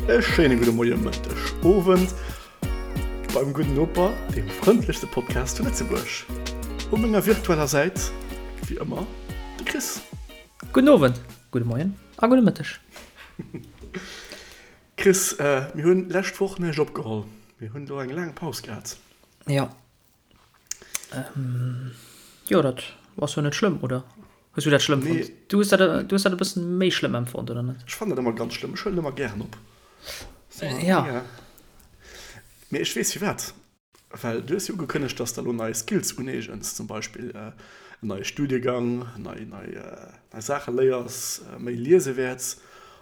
E schéine gudde Moie, Mëtteg, Owend beim Gudden Noper, deem frëndlechste Podcast zu Lëtzebuerg. U menger virtueller Säit, wéi ëmmer, de Chris. Gudden Owend, gudde Moien a gudde Mëtteg. Chris, mir hunn lescht Woch näischt opgeholl. Mir hunn elo eng laang Paus gehat. Jo. Jo, dat ass jo net schlëmm, oder? Hues du dat schlëmm fonnt? Nee. Du hues dat, du hues dat e bëssen méi schlëmm empfonnt, oder net? Ech fannen dat ëmmer ganz schlëmm. Ech huelen ëmmer gären op. So, ja. ja. Mee ech weess firwat. Well du hues jo ugekënnegt, dass de elo nei Skills uneegens, zum Beispill en neie Studiegang, nei, nei, nei Saache léiers, méi liese wäerts.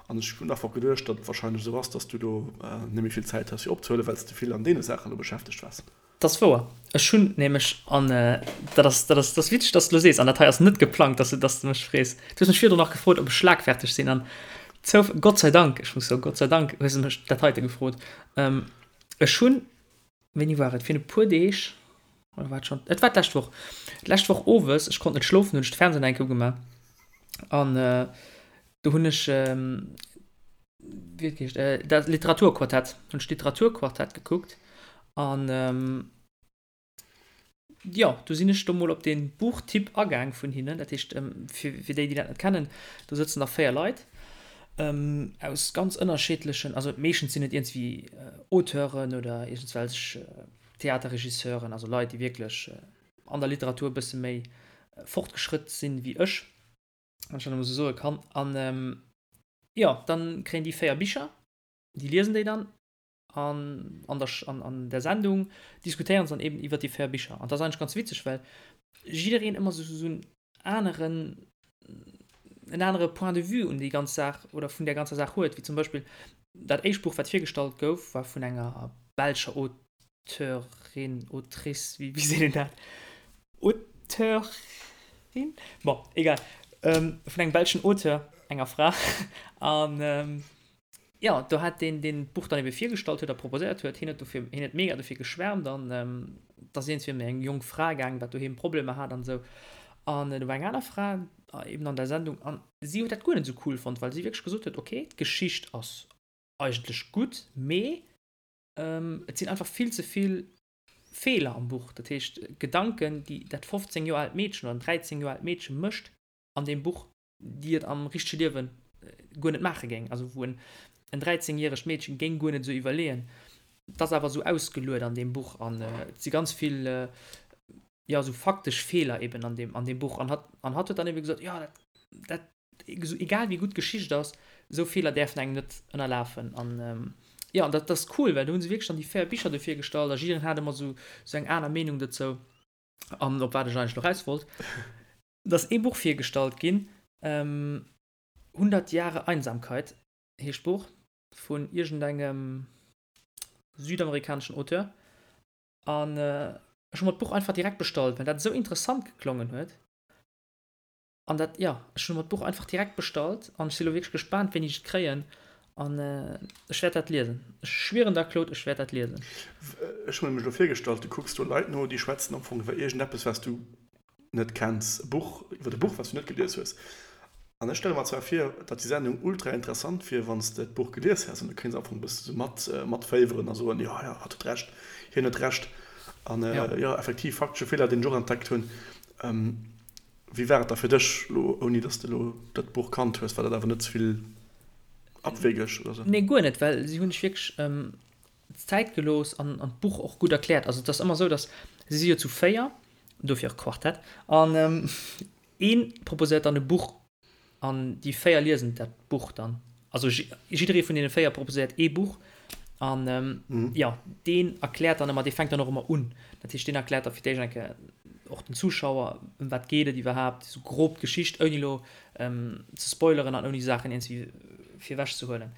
An ech hunn einfach geduecht, datt et warscheinlech esou ass, dass du do net méi vill Zäit has fir opzehuelen, well s de vill an deene Saachen elo beschäftegt waars. Dat ass wouer. Ech hunn nämlech, an dat ass, dat ass, dat ass witzeg, dass de elo sees, an dat hei ass net geplangt, dass du, dass du mech frees. Du hues mech virdrun nach gefrot, ob ech schlagferteg sinn, an zouf, Gott sei Dank, ech muss soen, Gott sei Dank hues de mech dat heite gefrot. Ech hunn, wéini war et, virun e puer Deeg, oder war et schonn, et war d'lescht Woch, d'lescht Woch owes, ech konnt net schlofen, hunn ech de Fernseh nach eng Kéier ugemaach an do hunn ech, wéi huet geheescht, dat Literaturquartett, hunn ech d'Literaturquartett gekuckt an jo, do sinn ech do mol op dee Buchtipp agaang vun hinnen. Dat heescht, fir fir déi, déi dat net kennen, do sëtzen da 4 Leit aus ganz ënnerscheedlechen, also meeschtens sinn et iergendwéi Auteuren oder iergendswelch Theaterregisseuren, also Leit, déi wierklech an der Literatur e bësse méi fortgeschrëtt sinn wéi ech. wann ech dat emol esou soe kann. An jo, dann kréien déi 4 Bicher, déi liesen déi dann an an der an an der Sendung diskutéieren se dann eben iwwer déi 4 Bicher. An dat ass eigentlech ganz witzeg, well jiddereen ëmmer esou esou en aneren en anere Point de vue un déi ganz Saach oder vun där ganzer Saach huet. Wéi zum Beispill dat éischt Buch, wat virgestallt gouf, war vun enger belscher Auteurin, Autrice, wéi seet een dat? Auteurin? Bon, egal. Vun engem belschen Auteur, enger Fra. An jo, do hat deen, deen d'Buch dann ebe virgestallt huet a proposéiert huet, hien huet dofir, hien huet mega dofir geschwärmt an et ass iergendwéi ëm eng jonk Fra gaangen, wat doheem Problemer hat an esou. An do war eng aner Fra eben an der Sendung an si huet dat guer net esou cool fonnt, well si wierklech gesot huet, okay, d'Geschicht ass eigentlech gutt, mee Et sinn einfach vill ze vill Feeler am Buch. Dat heescht, Gedanken, déi dat 15 Joer aalt Meedchen oder en 13 Joer aalt Meedche mécht an deem Buch, déi et am richtege Liewe guer net maache géing. Also wou en en 13 järegt Meedchen géing guer net esou iwwerleeën. Et ass awer esou ausgeluet an deem Buch an et si ganz vill, jo, esou faktesch Feeler eben an deem, an deem Buch. An hatt, an hatt huet dann ebe gesot, jo, dat, dat egal wéi gutt d'Geschicht ass, esou Feeler däerfen engem net ënnerlafen. An jo, an dat ass cool, well do hu se wierklech dann déi 4 Bicher do virgestallt a jiddereen hat ëmmer esou esou eng aner Meenung dozou. An op wat ech eigentlech elo raus wollt, et ass ee Buch virgestallt ginn, 100 Jahre Einsamkeit heescht d'Buch, vun iergendengem südamerikaneschen Auteur. An ech hu mer d'Buch einfach direkt bestallt, well dat esou interessant geklongen huet. An dat, jo, ech hunn mer d'Buch einfach direkt bestallt an ech si lo wierklech gespaant, wéini ech et kréien. An ech wäert dat liesen. Ech schwieren der, Claude, ech wäert dat liesen. Ech hu mir nämlech elo virgestallt, du kucks do Leit no, déi schwätzen am Fong iwwer iergendeppes, wat s du net kenns, e Buch, iwwer e Buch, wat s du net gelies hues. An ech stelle mer zwar vir, datt déi Sendung ultra interessant wier, wann s de d'Buch gelies häss an du kéints am Fong e bësse sou mat, matféiweren a soen, jo, jo, hatt huet Recht, hien huet Recht. An jo, effektiv, faktesche Feeler, deen ech och entdeckt hunn. Wéi war et da fir dech elo, ouni dass de elo dat Buch kannt hues? War dat awer net ze vill abwegeg oder sou? Nee, guer net, well si hunn sech wierklech d'Zäit gelooss an d'Buch och gutt erkläert. Also et ass ëmmer esou, dass, si si jo zu 4, dofir och Quartett, an ee proposéiert dann e Buch An déi 4 liesen dat Buch dann. Also jidderee vun deene 4 proposéiert ee Buch. An jo, deen erkläert dann ëmmer, dee fänkt dann och ëmmer un. Dat heescht, deen erkläert da fir d'éischt eng Kéier och den Zuschauer, ëm wat geet et iwwerhaapt, esou grob d'Geschicht, ouni elo ze spoileren an ouni Saachen iergendwéi virwech ze huelen.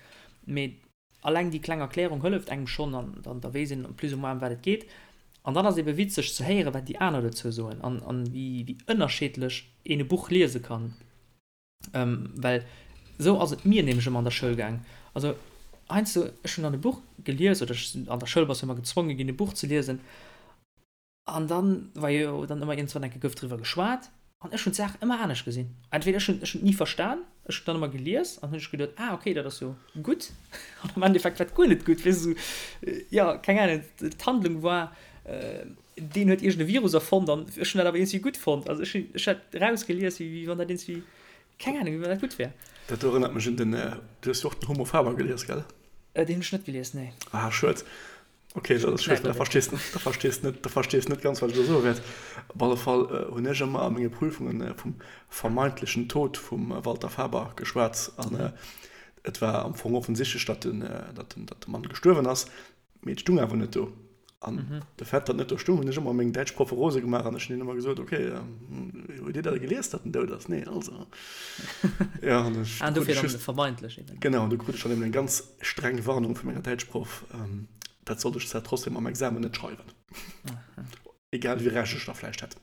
Mee Alleng déi kleng Erklärung hëlleft engem schonn an dann da weess een plus ou moins ëm wat et geet. An dann ass ebe witzeg ze héieren, wat déi aner dozou soen an an wéi wéi ënnerscheedlech een e Buch liese kann. Well esou ass et mir nämlech ëmmer an der Schoul gaang. Also heiansdo, ech hunn dann e Buch gelies oder ech sinn an der Schoul bass jo ëmmer gezwonge ginn e Buch ze liesen An dann war jo dann ëmmer iergendwann eng Kéier gouf driwwer geschwat an ech hunn d'Saach ëmmer anescht gesinn. Entweder ech hunn ech hunn et ni verstan. Ech hunn dann ëmmer gelies an hunn ech geduet, ah okay, dat ass jo gutt. An am Endeffekt war et guer net gutt, weess de, esou, jo, keng Ahnung, d'Handlung war, deen huet iergend e Virus erfonnt an ech hunn dat awer iergendwéi gutt fonnt. Also ech hunn, ech hat erausgelies, wéi wann dat iergendwéi, keng Ahnung, wéi wann dat gutt wär. Dat do erënnert mech un den, du hues jo och den Homo Faber gelies, gell? Deen hunn ech net gelies, nee. Ah, schued. Ok, dat ass schued, da verstees da verstees net, da verstees net ganz, wat ech elo soe wäert. Op alle Fall hunn ech ëmmer a menge Prüfungen vum vermeintlechen Tod vum Walter Faber geschwat. An et war am Fong offensichtlech, datt den, datt den, datt de Mann gestuerwen ass, mee et stung awer net do. An de Fait, datt net do stung, hunn ech ëmmer meng däitsch Proffe rose gemaach an ech hunn hinnen ëmmer gesot, ok, hutt Dir dat gelies, datt en dout ass? Nee, also. Ja, an ech, du krut ech just, vermeintlich eben. Genau, an du krut ech dann eben eng ganz streng Warnung vu menger Däitschproff, dat sollt ech zwar trotzdem am Examen net schreiwen. Egal wéi Recht ech da vläicht hätt.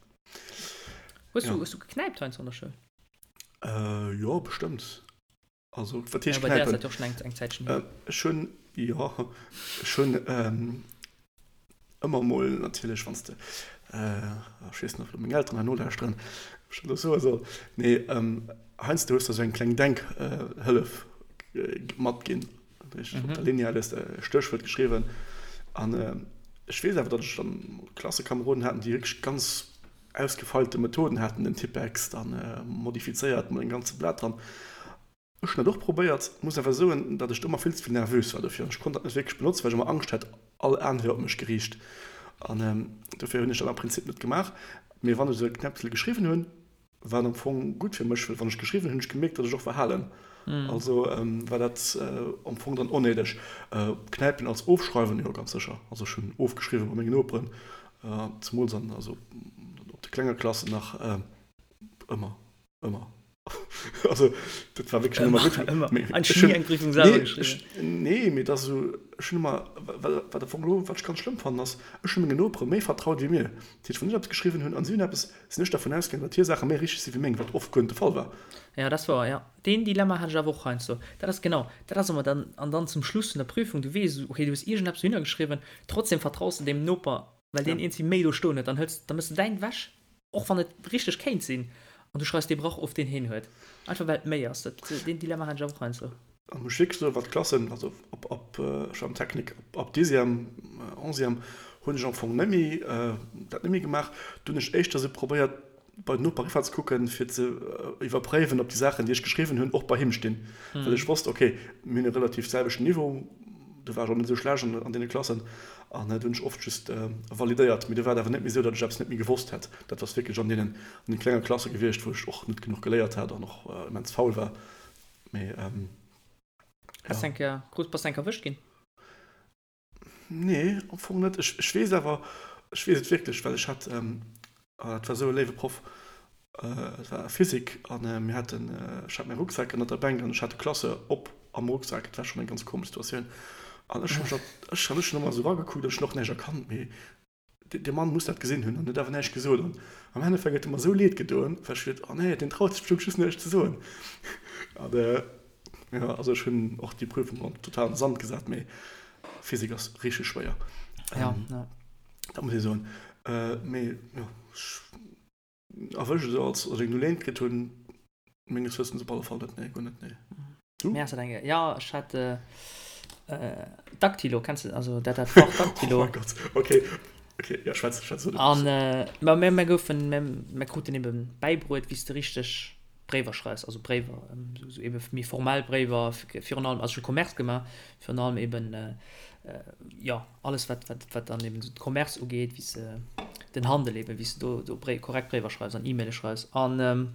Hues du, hues du geknäipt heiansdo an der Schoul? Jo, bestëmmt. Also, wat heescht knäipen? Ja, bei dir ass dat jo och schonn eng Zäitchen hier. Ech hunn, jo, ech hunn ëmmer mol natierlech, wann s de, ech weess net, ob meng Elteren hei nolauschteren, ob ech dat elo soe soll, mee heiansdo hues de esou eng kleng Denkhëllef matginn. Dat heescht, op der Lineal hues de e Stéchwuert geschriwwen. An ech weess awer, datt ech dann Klassekameroden haten, déi wierklech ganz ausgefeilte Methoden haten, den Tippex dann modifizéiert mat engem ganze Blat dran. Ech hunn dat och probéiert, muss awer soen, datt ech do ëmmer vill ze vill nervös war dofir an ech konnt dat net wierklech benotzen, well ech ëmmer Angscht hat, all Aen wier op mech geriicht. An dofir hunn ech dat am Prinzip net gemaach. Mee wann ech esou e Knäppsel geschriwwen hunn, war et am Fong gutt fir mech, well wann ech geschriwwen hunn, hunn ech gemierkt, datt ech och verhalen. Also war dat am Fong dann onnéideg. Knäipen als Ofschreiwen, jo ganz sécher. Also ech hunn ofgeschriwwen bei mengen Noperen, zemools an also op de klenge Klassen nach ëmmer. Ëmmer. Also, dat war wierklech ëmmer gutt. Ëmmer. Ech hunn ni eng Prüfung selwer geschriwwen. Nee, mee et ass esou, ech hunn ëmmer, wat am Fong elo, wat ech ganz schlëmm fannen, ass, ech hunn mengen Nopere méi vertraut wéi mir. Dat heescht, wann ech eppes geschriwwen hunn an si hunn eppes, sinn ech dervun ausgaangen, datt hir Saache méi richteg si wéi meng, wat oft guer net de Fall war. Jo, dat ass wouer, jo. Deen Dilemma hat ech awer och heiansdo. Dat ass genau, dat ass ëmmer dann, an dann zum Schluss vun der Prüfung, du weess, okay, du hues iergendeppes dohinner geschriwwen, trotzdem vertraus de deem Noper, well deen iergendwéi méi do stoen huet, dann hëls, da méchs de däin ewech. Och wann et richteg kéint sinn, an du schreifs dee Brach of, deen heen huet. Einfach well et méi ass. Dat, deen Dilemma hat ech awer och heiansdo. An muss wierklech soen, wat d'Klassen, also ab, ab, ech war am Technik, ab, ab Dixième, Onzième hunn ech am Fong net méi, dat net méi gemaach. Do hunn ech éischter esou probéiert, bei den Noper eriwwer ze kucken, fir ze iwwerpréiwen, ob déi Saachen, déi ech geschriwwen hunn, och bei him stinn. Well ech wosst, okay, mir hunn e relativ selwechten Niveau, do war ech och net esou schlecht an deene Klassen an do hunn ech oft just validéiert. Mee do war et awer net méi esou, datt ech eppes net méi gewosst hätt. Dat ass wierklech an deenen an de klenge Klasse gewiescht, wou ech och net genuch geléiert hat an och immens faul war. Mee ja. Bass eng Kéier, krus, bass eng Kéier erwëscht ginn? Nee, am Fong net. Ech, ech weess awer, ech weess et wierklech, well ech hat, dat war esou e léiwe Proff, et war Physik a mir haten, ech hat mäi Rucksak ënnert der Bänk an ech hat de Classeur op am Rucksak. Et war schonn eng ganz komesch Situatioun an ech hu mech, ech hu ëmmer esou eragekuckt an ech hunn och näischt erkannt, mee Dee Mann muss dat gesinn hunn an huet awer näischt gesot. An am Endeffekt huet e mer esou leed gedoen, well ech geduet, oh nee, deen traut sech bestëmmt just näischt ze soen. An jo, also ech hunn och déi Prüfung dann total an de Sand gesat, mee Physik ass richteg schwéier. Ja, ja. Dat muss ee soen. Mee jo, ech erwëscht esou als ech eng Null kritt hunn, menges Wëssens op alle Fall net, nee, guer net, nee. Du? Mir ass dat eng, ja, ech hat äh, Daktilo, kenns du, also dat dat Fach Daktilo. Oh mein Gott, okay, okay, ja, schwätz, schwätz. An äh, ma mir, mir goufen, mir, mir kruten eben bäibruet, wéi s de richteg Bréiwer schreifs, also Bréiwer, ähm, sou eben méi formell Bréiwer, virun allem, also ech hu Commerce gemaach, virun allem eben äh, jo, alles wat, wat, wat dann eben de Commerce ugeet, wéi s de den Handel eben, wéi s de do, do Bréi, korrekt Bréiwer schreifs an E-Maile schreifs. An ähm,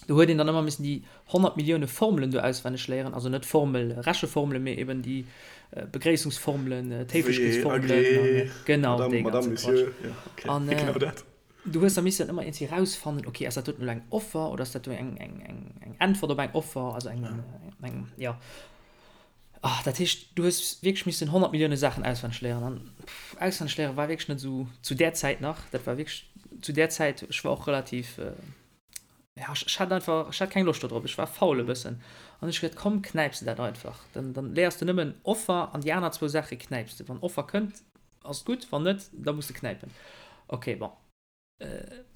do huet een dann ëmmer missen déi 100 Millioune Formelen do auswenneg léieren, also net Formel, Recheformelen, mee eben déi äh, Begréissungsformelen, äh, d'Héiflechkeetsformelen, genau, Madame, dee ganze Madame, Monsieur, Quatsch. ja, okay, An äh, genau dat. du hues da missen ëmmer iergendwéi rausfannen, okay, ass dat doten elo eng Offer oder ass dat do eng, eng, eng, eng Äntwert op eng Offer, also eng, eng, ja. Ah, dat heescht, du hues wierklech missen 100 Millioune Saachen auswenneg léieren. An pff, auswenneg léiere war wierklech net esou zu där Zäit nach. Dat war wierklech zu där Zäit, ech war och relativ, ja, ech, ech hat einfach, ech hat keng Loscht do drop, ech war faul e bëssen. An ech geduet, komm, knäips de dat einfach. Dann, dann léiers de nëmmen Offer an déi aner zwou Saache knäips de. Wann Offer kënnt, ass et gutt, wann net, da muss de knäipen. Okay, bon.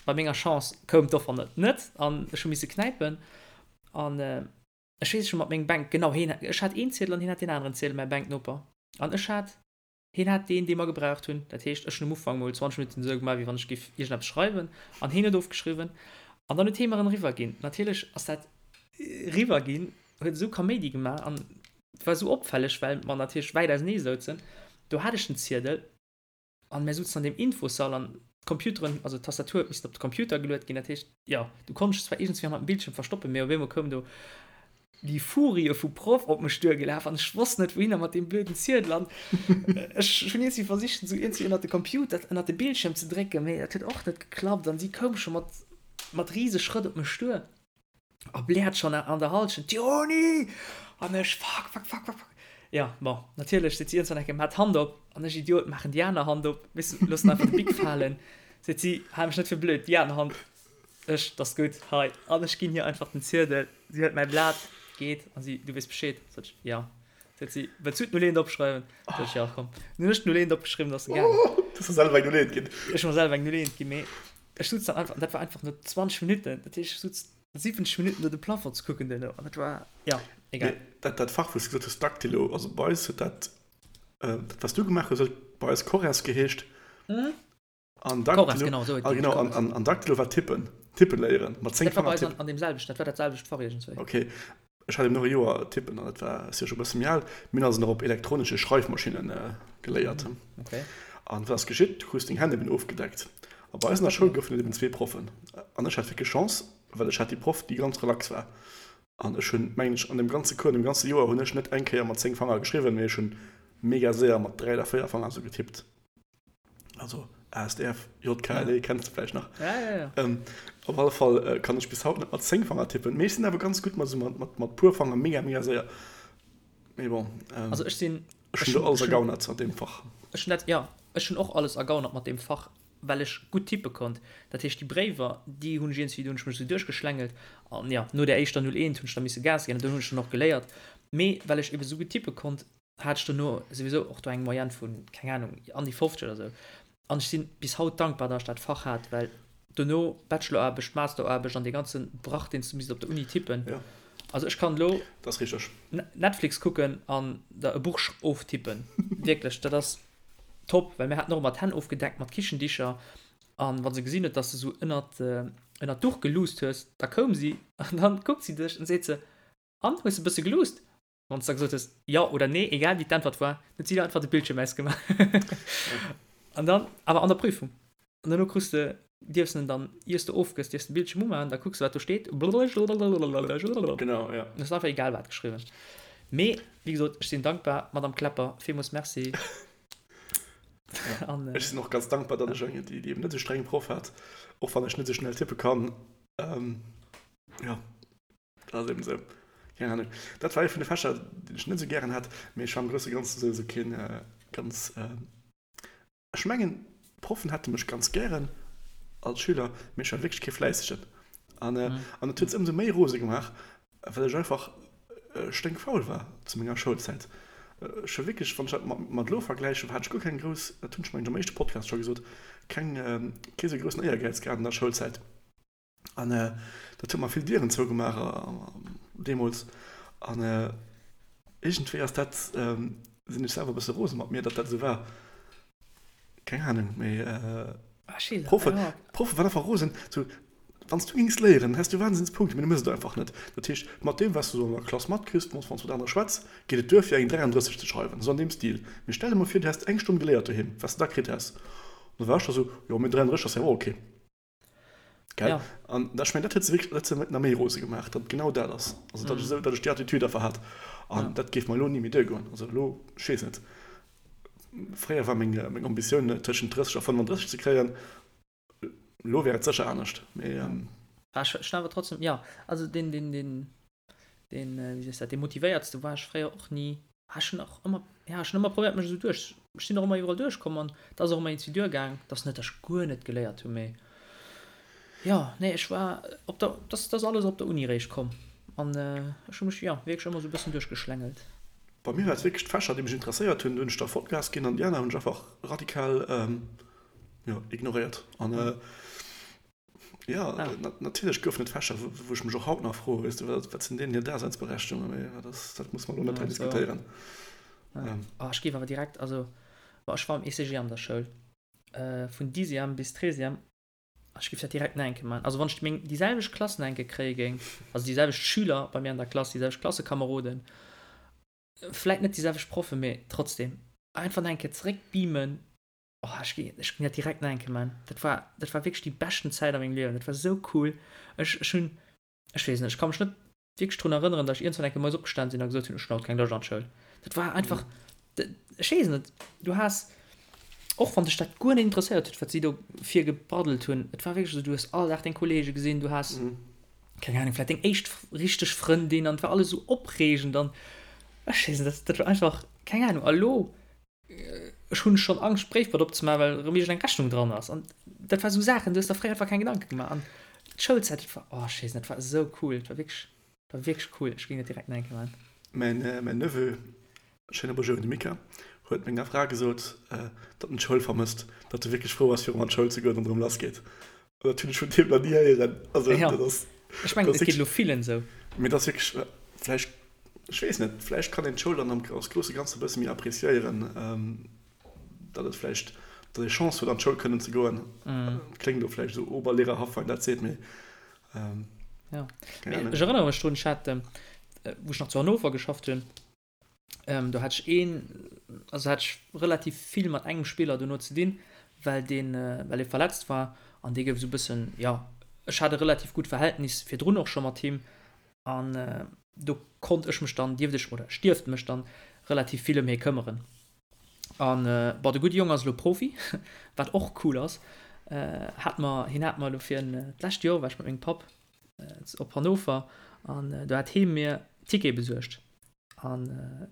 Bei menger Chance koum d'Offer net, net an ech hu misse knäipen. An. Ech weess, ech hu mat mengem Bänk, genau, hien, ech hat een Ziedel an hien hat deen aneren Ziedel, mäi Bänknoper. An ech hat, hien hat deen, dee mer gebraucht hunn. Dat heescht, ech hunn um Ufank mol 20 Minutten esou gemaach, wéi wann ech géif iergendeppes schreiwen, an hien huet ofgeschriwwen. An dann huet hie mer en eriwwerginn. Natierlech ass dat eriwwerginn, huet esou Kaméidi gemaach an et war esou opfälleg, well mer natierlech wäit ausenee souzen. Do hat ech den Ziedel. An mär souzen an deem Infossall an d'Computeren, also d'Tastatur huet missen op de Computer geluet ginn. Dat heescht, jo, du konns dech zwar iergendswéi hannert dem Bildschierm verstoppen, mee op eemol koum do déi Furie vu Proff op mech duergelaf an ech wosst net wouhinner mat deem blöden Ziedel. An ech hunn iergendwéi versicht, en esou iergendwéi ënnert de Computer, ënnert de Bildschierm ze drécken, mee dat huet och net geklappt an si koum scho mat, mat rise Schrëtt op mech duer. A bläert schonn an der Halschent, Diony! An ech, Fuck, fuck, fuck, fuck, fuck. Jo, bon, natierlech seet si iergendwann eng Kéier, Maach d'Hand op! An ech, Idiot, maachen déi aner Hand op, weess de, loossen einfach de Bic falen. Seet si, Hal mech net fir blöd, déi aner Hand. Ech, 't ass gutt, hei. An ech ginn hir einfach den Ziedel. Si hëlt mäi Blat, geet, a si, Du weess Bescheed? Sot ech, Jo. Seet si, Wëlls du d'Null eent opschreiwen? Sot ech, Jo, komm. Dann hunn ech d'Null eent opgeschriwwen, ass se gaangen. Du hues der selwer eng Null eent ginn? Ech hu mer selwer eng Null eent ginn, mee Ech sutz dann einfach, an dat war einfach no 20 Minutten, dat heescht ech sutz 70 Minutten do de Plafond ze kucken duerno, an dat war, jo, egal. Mee dat, dat Fach, wou s de gesot hues, Dactylo, also bei eis huet dat, dat wat s du gemaach hues, huet bei eis Corres geheescht. An Dactylo, Corres, genau, esou huet ah, genau, an, an, an Dactylo war Tippen, Tippen léieren, mat 10 Dat war bei eis an, an deem selwechten, dat war dat selwecht Fach iergendswéi. Okay. Ech hat eben och e Joer tippen an dat war, ass jo scho e bësse méi al, mir hunn also nach op elektronesche Schreifmaschinne geléiert. An wat ass geschitt? Du krus deng Hänn eben ofgedeckt. A bei eis an der Schoul goufen et eben zwee Proffen. An ech hat wierklech Chance, well ech hat déi Proff, déi ganz relax war. An ech hunn, mengen ech, an deem ganze Cours, an deem ganze Joer hunn ech net eng Kéier mat 10 Fanger geschriwwen, mee ech hunn mega séier mat 3 oder 4 Fanger esou getippt. Also ASDF, JKLE ja. kennst du vielleicht nach. Ja, ja, ja. Ähm, op alle Fall äh, kann ich bis haut net mat 10 Fanger tippen. Mee ech sinn awer ganz gutt mat, so mat, mat, mat puer Fanger mega mega séier. Mee bon. Ähm, also ech sinn ech hunn do alles ergaunert an deem Fach. Ech hunn dat ja, ech hunn och alles ergaunert mat deem Fach, well ech gutt tippe konnt. Dat heescht déi Bréiwer, déi hunn ech iergendwéi, do hunn ech mech esou duerchgeschlängelt an ja, no der éischter 01 hunn ech da misse Gas ginn an dunn hunn ech dann och geléiert. Mee well ech ebe sou gutt tippe konnt, hat ech dono souwisou och do eng Moyenne vun, keng Ahnung, an déi 50 oder sou. An ech si bis haut dankbar, datt ech dat Fach hat, well dono Bacheloraarbecht, Masteraarbecht an dee ganze Brach, deen s du misst op der Uni tippen. Ja. Also ech kann elo Dat ass richteg. Netflix kucken an der e Buch oftippen. Wierklech, dat ass top, well mir haten och ëmmer d'Hänn ofgedeckt mat Kichendicher an wa se gesinn huet, datt s de sou ënnert, ënnert d'Duch geluusst hues, da koum si an dann kuckt si dech an seet se, An, hues de e bësse geluusst? Wann s de da gesot hues jo oder nee, egal wéi d'Äntwert war, huet si da einfach de Bildschierm ausgemaach. An dann, awer an der Prüfung. An duerno krus de, dierfs en dann, iers de ofgëss, dierfs de Bildschierm umaachen, da kucks de wat do steet. Genau, ja. Hues einfach egal wat geschriwwen. Mee, wéi gesot, ech sinn dankbar, Madame Klepper, villmools Merci. Ja. An, ech sinn och ganz dankbar, datt ech eng, déi, déi eben net esou streng Proff hat, och wann ech net esou schnell tippe kann. Ähm, ja. Dat ass eben esou. Keng Ahnung. Dat war ee vun de Fächer, deen ech net esou gären hat, mee ech war am grousse Ganzen esou esou keen ganz, ech mengen d'Proffen hätte mech ganz gären als Schüler, mee ech war wierklech kee Fläissegen. An an et huet se ëmsou méi rose gemaach, well ech einfach sténkfaul war zu menger Schoulzäit. Ech war wierklech, wann ech dat mat mat elo vergläichen, hat ech guer keng grouss, dat hunn ech mengen ech am éischte Podcast scho gesot, keng kee sou groussen Éiergäiz gehat an der Schoulzäit. An dat huet mer vill Dieren zougemaach deemools. An iergendwéi ass dat, sinn ech selwer e bësse rose mat mir, datt dat esou war. Keng Anung, mee d'Proffe, d'Proffe waren einfach rosen. Sou, wann s du géings léieren, häss du Wahnsinnspunkte, mee du méchs et einfach net. Dat heescht, mat deem, wat s du sou an der Klass matkriss, wann s du mat anere schwätz, geet et duer, fir eng 33 ze schreiwen, sou an deem Stil. Mee stell der mol vir, du häss eng Stonn geléiert doheem, wat s de da kritt häss. An da war ech da sou, jo, mee 33 ass jo och ok. Gell? Ja. An ech mengen, dat huet se wierklech, dat huet se nach méi rose gemaach, datt et genau dat ass. Also datt ech esou, datt ech déi Attitüd einfach hat. An Ja. dat géif mer elo ni méi duergoen. Also elo, ech weess net, fréier war meng, meng Ambitioun tëschent 30 a 35 ze kréien. Elo wär et sécher anescht, mee. Ja. Ah, ech ech awer trotzdem, ja, also deen, deen, deen, deen, wéi sees dat, dee motivéiertste war ech fréier och ni. Ah, ech hunn och ëmmer, ja, ech hunn ëmmer probéiert mech esou duerch, ech sinn och ëmmer iwwerall duerchkomm an et ass och ëmmer iergendwéi duergaang. Et ass net, datt ech guer net geléiert hunn, mee jo, nee, ech war op der, dat ass alles op der Uni réischt komm an ech hu mech, jo, wierklech ëmmer esou e bëssen duerchgeschlängelt. Bei mir war et wierklech d'Fächer, déi mech interesséiert hunn, do hunn ech da Vollgas ginn an déi aner hunn ech einfach radikal, jo, ignoréiert. An. Jo, natierlech goufen et Fächer, wou ech mech och haut nach froe, weess de, wat sinn deenen hir Daseinsberechtigungen? Mee dat ass, dat muss mer elo net hei diskutéieren. Oh, ech géif awer direkt, also, bon, ech war am ECG an der Schoul, vun Dixième bis Treizième, ech géif dat direkt nach eng Kéier maachen. Also wann ech meng, déi selwecht Klass nach eng Kéier kréie géing, also déi selwecht Schüler bei mir an der Klass, déi selwecht Klassekameroden, vläit net déi selwecht Proffen, mee trotzdem, einfach nach eng Kéier zeréckbeamen, Oh, ech gi, ech ginn dat direkt nach eng Kéier man. Dat war, dat war wierklech déi beschten Zäit a mengem Liewen. Dat war sou cool. Ech, ech hunn, ech weess net, ech ka mech net wierklech drun erënneren, datt ech iergendwann eng Kéier moies opgestan sinn a gesot hunn, ech hunn haut keng Loscht an d'Schoul. Dat war einfach, ech weess net, du has, och wann dech dat guer net interesséiert huet, wat si do virgebraddelt hunn, et war wierklech esou, du hues all Dag deng Kollege gesinn, du has, keng Ahnung, vläicht deng éischt richteg Frëndin an et war alles esou opreegend an ech weess net, dat, dat war einfach, keng Ahnung. A lo Ech hunn schonn Angscht d'Bréifboîte opzemaachen, well erëm iergend eng Rechnung dran ass. An dat war esou Saachen, du hues der fréier einfach keng Gedanke gemaach. An d'Schoulzäit, dat war, oh ech weess net, dat war esou cool, dat war wierklech, dat war wierklech cool. Ech géing dat direkt nach eng Kéier maachen. Mäin, mäin Neveu, schéine Bonjour un de Mika, huet menger Fra gesot, datt en d'Schoul vermësst, datt e wierklech frou ass, fir erëm an d'Schoul ze goen an erëm lassgeet. An dat hunn ech vun deem nach ni héieren. Also Ja, dat ass, ech mengen, dat et geet elo villen esou. Mee dat ass wierklech, vläicht, ech weess net, vläicht kann een d'Schoul dann am als grousse Ganze e bësse méi appreciéieren, datt et vläicht, datt ee Chance huet an d'Schoul kënnen ze goen. Kléngt elo vläicht esou oberlehrerhaft, wann een dat seet, mee Ja, mee ech erënnere mech drun, ech hat, wou ech nach zu Hannover geschafft hunn, Do hat ech een, also hat ech relativ vill mat engem Spiller dono ze dinn, well deen, well e verletzt war an dee gouf esou e bëssen, jo, ech hat e relativ gutt Verhältnis virdrun och scho mat him an do konnt ech mech dann, dierft ech oder ech dierft mech dann relativ vill ëm hie këmmeren. An bon, de gudde Jong ass elo Profi, wat och cool ass. Hat mer, hien hat mer elo fir d'lescht Joer war ech mat mengem Papp op Hannover an do hat hie mir Tickete besuergt. An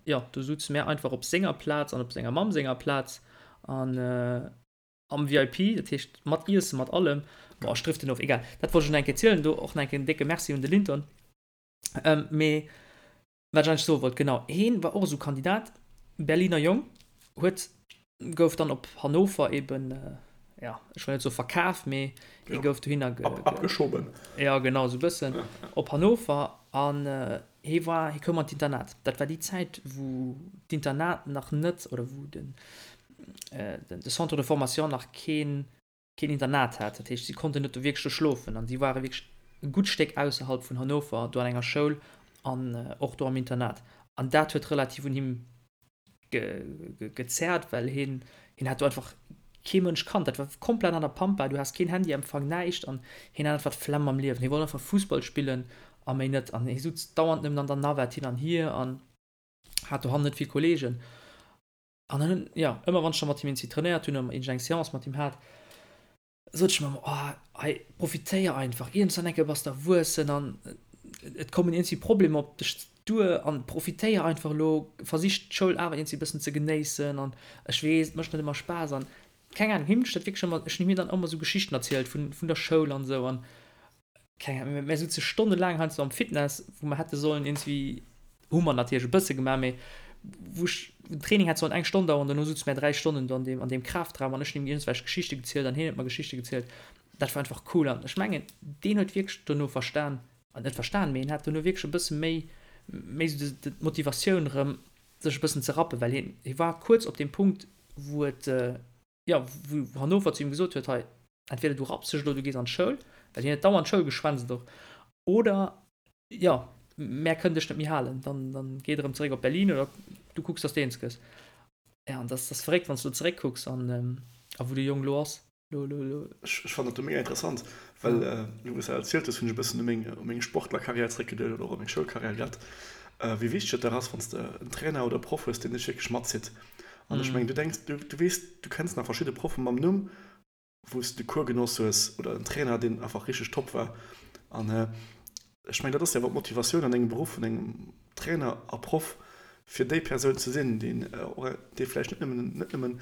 jo, do souze mär einfach op senger Plaz an op senger Mamm senger Plaz an am VIP, dat heescht mat Iessen, mat allem. Boah, ech driften of, egal. Dat wollt ech nach eng Kéier zielen. Do och nach eng Kéier en décke Merci un de Linton. Mee wat ech eigentlech soe wollt, genau, heen war och esou Kandidat, Berliner Jong, huet, gouf dann op Hannover eben, ja, ech wëll net soe verkaf, mee hie gouf dohinner ge, Abgeschoben. Ja, genau, esou e bëssen, op Hannover an Hie war, hie koum an d'Internat. Dat war déi Zäit, wou d'Internat nach net, oder wou den, de Centre de formation nach keen, keen Internat hat. Dat heescht, si konnten net do wierklech do schlofen an si ware wierklech e gutt Stéck ausserhalb vun Hannover do an enger Schoul an och do am Internat. An dat huet relativ un him gezerrt, well hien, hien hat do einfach kee Mënsch kannt. Dat war komplett an der Pampa, du has keen Handyempfang, näischt an hien hat einfach d'Flemm am Liewen. Hie wollt einfach Fussball spillen a méi net. An hie sutz dauernd nëmmen an der Navette hin an hier an hat dohannen net vill Kolleegen. An dann hunn, jo, ëmmer wann ech da mat him iergendwéi trainéiert hunn oder iergendeng Seance mat him hat, sot ech mer ëmmer, oh hei profitéier einfach, iergendwann eng Kéier bass de erwuessen an et kommen iergendwéi Problemer op dech duer an profitéier einfach elo, versich d'Schoul awer iergendwéi e bëssen ze genéissen an ech weess, et mécht net ëmmer Spaass an keng Ahnung, him hunn ech dat wierklech ëmmer, ech hunn him dann ëmmer esou Geschichten erzielt vun, vun der Schoul an esou an keng Ahnung, mir souze stonnelaang heiansdo am Fitness, wou mer hätte sollen iergendwéi, hu mer natierlech e bësse gemaach, mee wou ech, den Training hätt sollen eng Stonn daueren, dono souze mer 3 Stonnen do an deem, an deem Kraftraum an ech hunn him iergendwelch Geschichte gezielt an hien huet mer Geschichte gezielt. Dat war einfach cool an ech mengen, deen huet wierklech dono verstan, net verstan, mee hien hat dono wierklech e bësse méi, méi esou d'Motivatioun erëm, sech e bëssen ze rappen, well hien, hie war kuerz op deem Punkt, wou et, jo, wou Hannover zu him gesot huet, hei, entweder du rapps dech elo, du gees an d'Schoul, well hien huet dauernd d'Schoul geschwänzt och, oder, jo, mär kënnen dech net méi halen, dann, dann geet erëm zeréck op Berlin oder du kucks, dass de eens gëss. Ja, an dat ass verréckt, wann s du elo zeréckkucks an, a wou de Jong elo ass. Lo, lo, lo. Ech, ech fannen dat do mega interessant, well, elo wou s de dat erzielt hues, hunn ech e bëssen u meng, u meng Sportlerkarriär zeréckgeduecht oder och u meng Schoulkarriär grad, wéi wichteg et dach ass, wann s de en Trainer oder e Proff hues, deen dech wierklech matzitt. An ech mengen, du denks, du, du weess, du kenns nach verschidde Proffe mam Numm, wou s de Cours genoss hues oder en Trainer, deen einfach richteg top war. An ech mengen, dat ass jo awer d'Motivatioun an engem Beruff vun engem Trainer a Proff, fir déi Persoun ze sinn, deen och, dee vläicht net nëmmen, net nëmmen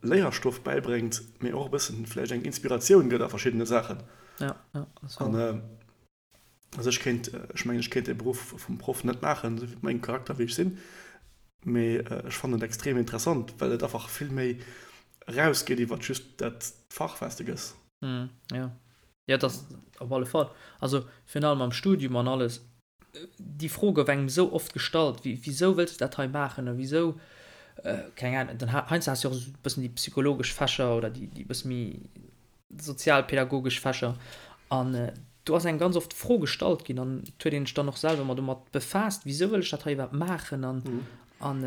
Léierstoff bäibréngt, mee och e bëssen vläicht eng Inspiratioun gëtt a verschiddene Saachen. Ja, ja, dat ass wouer. Also ech kéint, ech mengen ech kéint de Beruff vum Proff net maachen, esou wéi mengem Charakter wéi ech sinn, mee ech fannen et extrem interessant, well et einfach vill méi erausgeet iwwert just dat Fach wat s de gëss. Jo. Ja, dat op alle Fall. Also virun allem am Studium an alles, déi Fro gouf engem esou oft gestallt, wéi, wisou wëlls de dat hei maachen a wisou, keng Ahnung, dann heiansdo has de jo och esou e bëssen déi psychologesch Fächer oder déi, déi bësse méi sozialpädagogesch Fächer an do ass engem ganz oft d'Fro gestallt ginn an et huet een sech dann och selwer mat domat befaasst, wisou wëll ech dat hei iwwerhaapt maachen an an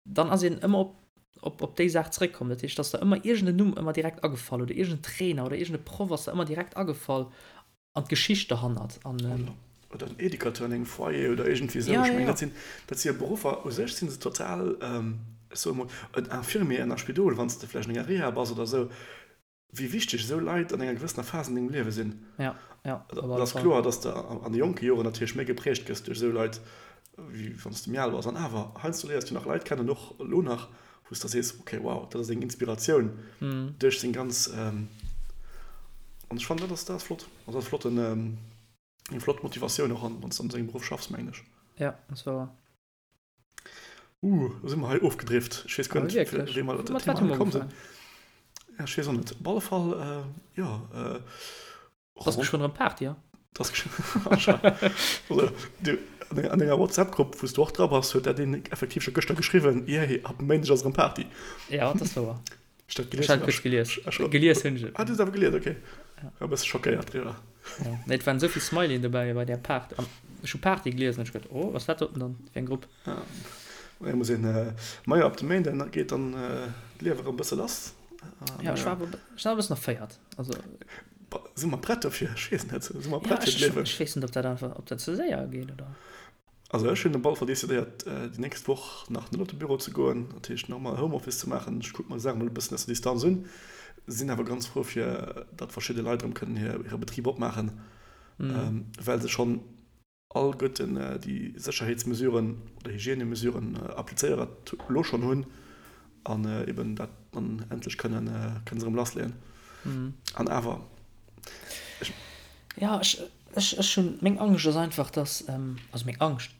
dann ass een ëmmer op, op, op déi Saach zréckkomm. Dat heescht, dass der ëmmer iergend en Numm ëmmer direkt agefall oder iergend en Trainer oder iergend e Proff ass der ëmmer direkt agefall an d'Geschicht derhannert. An, Oder en Educateur an engem Foyer oder iergendwéi esou. Ech mengen, dat sinn, dat si jo Beruffer, u sech si se total, ech soe mol, en Infirmier an der Spidol, wann s de vläicht an enger Reha bass oder esou, wéi wichteg esou Leit an enger gewëssener Phas an dengem Liewe sinn. Ja, ja, op alle Et ass kloer, dass de an de jonke Joren natierlech méi geprägt gëss duerch esou Leit, wéi wann s de méi al bass. An awer, heiansdo léiers du nach Leit kennen, och elo nach, wou s de sees, okay, wow, dat ass eng Inspiratioun duerch seng ganz. An ech fannen, dat ass, dat ass flott. Also dat ass flotten, eng flott Motivatioun och, wann s de an esou engem Beruff schaffs, mengen ech. Ja, dat ass wouer. Uh, do si mer hei ofgedrift. Ech weess guer net, wéi mer op dat Thema komm sinn. Ja, ech weess och net. Op alle Fall, jo. Et ass geschwënn erëm Party, ja? Et ass geschwënn. Also, du, an denger WhatsApp-Grupp, wou s du och dra bass, huet dat een effektiv scho gëschter geschriwwen, Yay, ab Méindeg ass erëm Party. Ja, dat ass wouer. Ech dat gelies hunn. Ech gelies. Gelies hunn ech et. Ah, du hues awer gelies, okay. War e bësse schockéiert driwwer. Ja, nee, et waren esou vill Smileyen dobäi bei där Part. An ech hu Party gelies an ech geduet, oh, was dat doten dann fir eng Grupp? Ja, ma muss een, majo, ab dem Méinden geet dann d'Liewe erëm e bësse lass. Ja, ech war awer, ech war e bëssen erféiert. Also. Si mer prett dofir? Ech weess net. Si mer prett fir d'Liewen? Ech weess net, ob dat einfach, ob dat ze séier geet, oder? Also ech hunn op alle Fall decidéiert déi nächst Woch nach net op de Büro ze goen, dat heescht nach emol Homeoffice ze maachen. Ech kucke mer déi Saach emol e bëssen aus der Distanz un. Sinn awer ganz frou fir datt verschidde Leit erëm kënnen hire Betrib opmaachen, well se schonn alleguerten déi Sécherheetsmesuren oder Hygiènemesuren applizéiert elo schonn hunn an eben dat dann endlech kënnen kënne se erëm lassleeën. An awer ech. Jo, ech Ech, ech hunn, meng Angscht ass einfach, dass, also meng Angscht,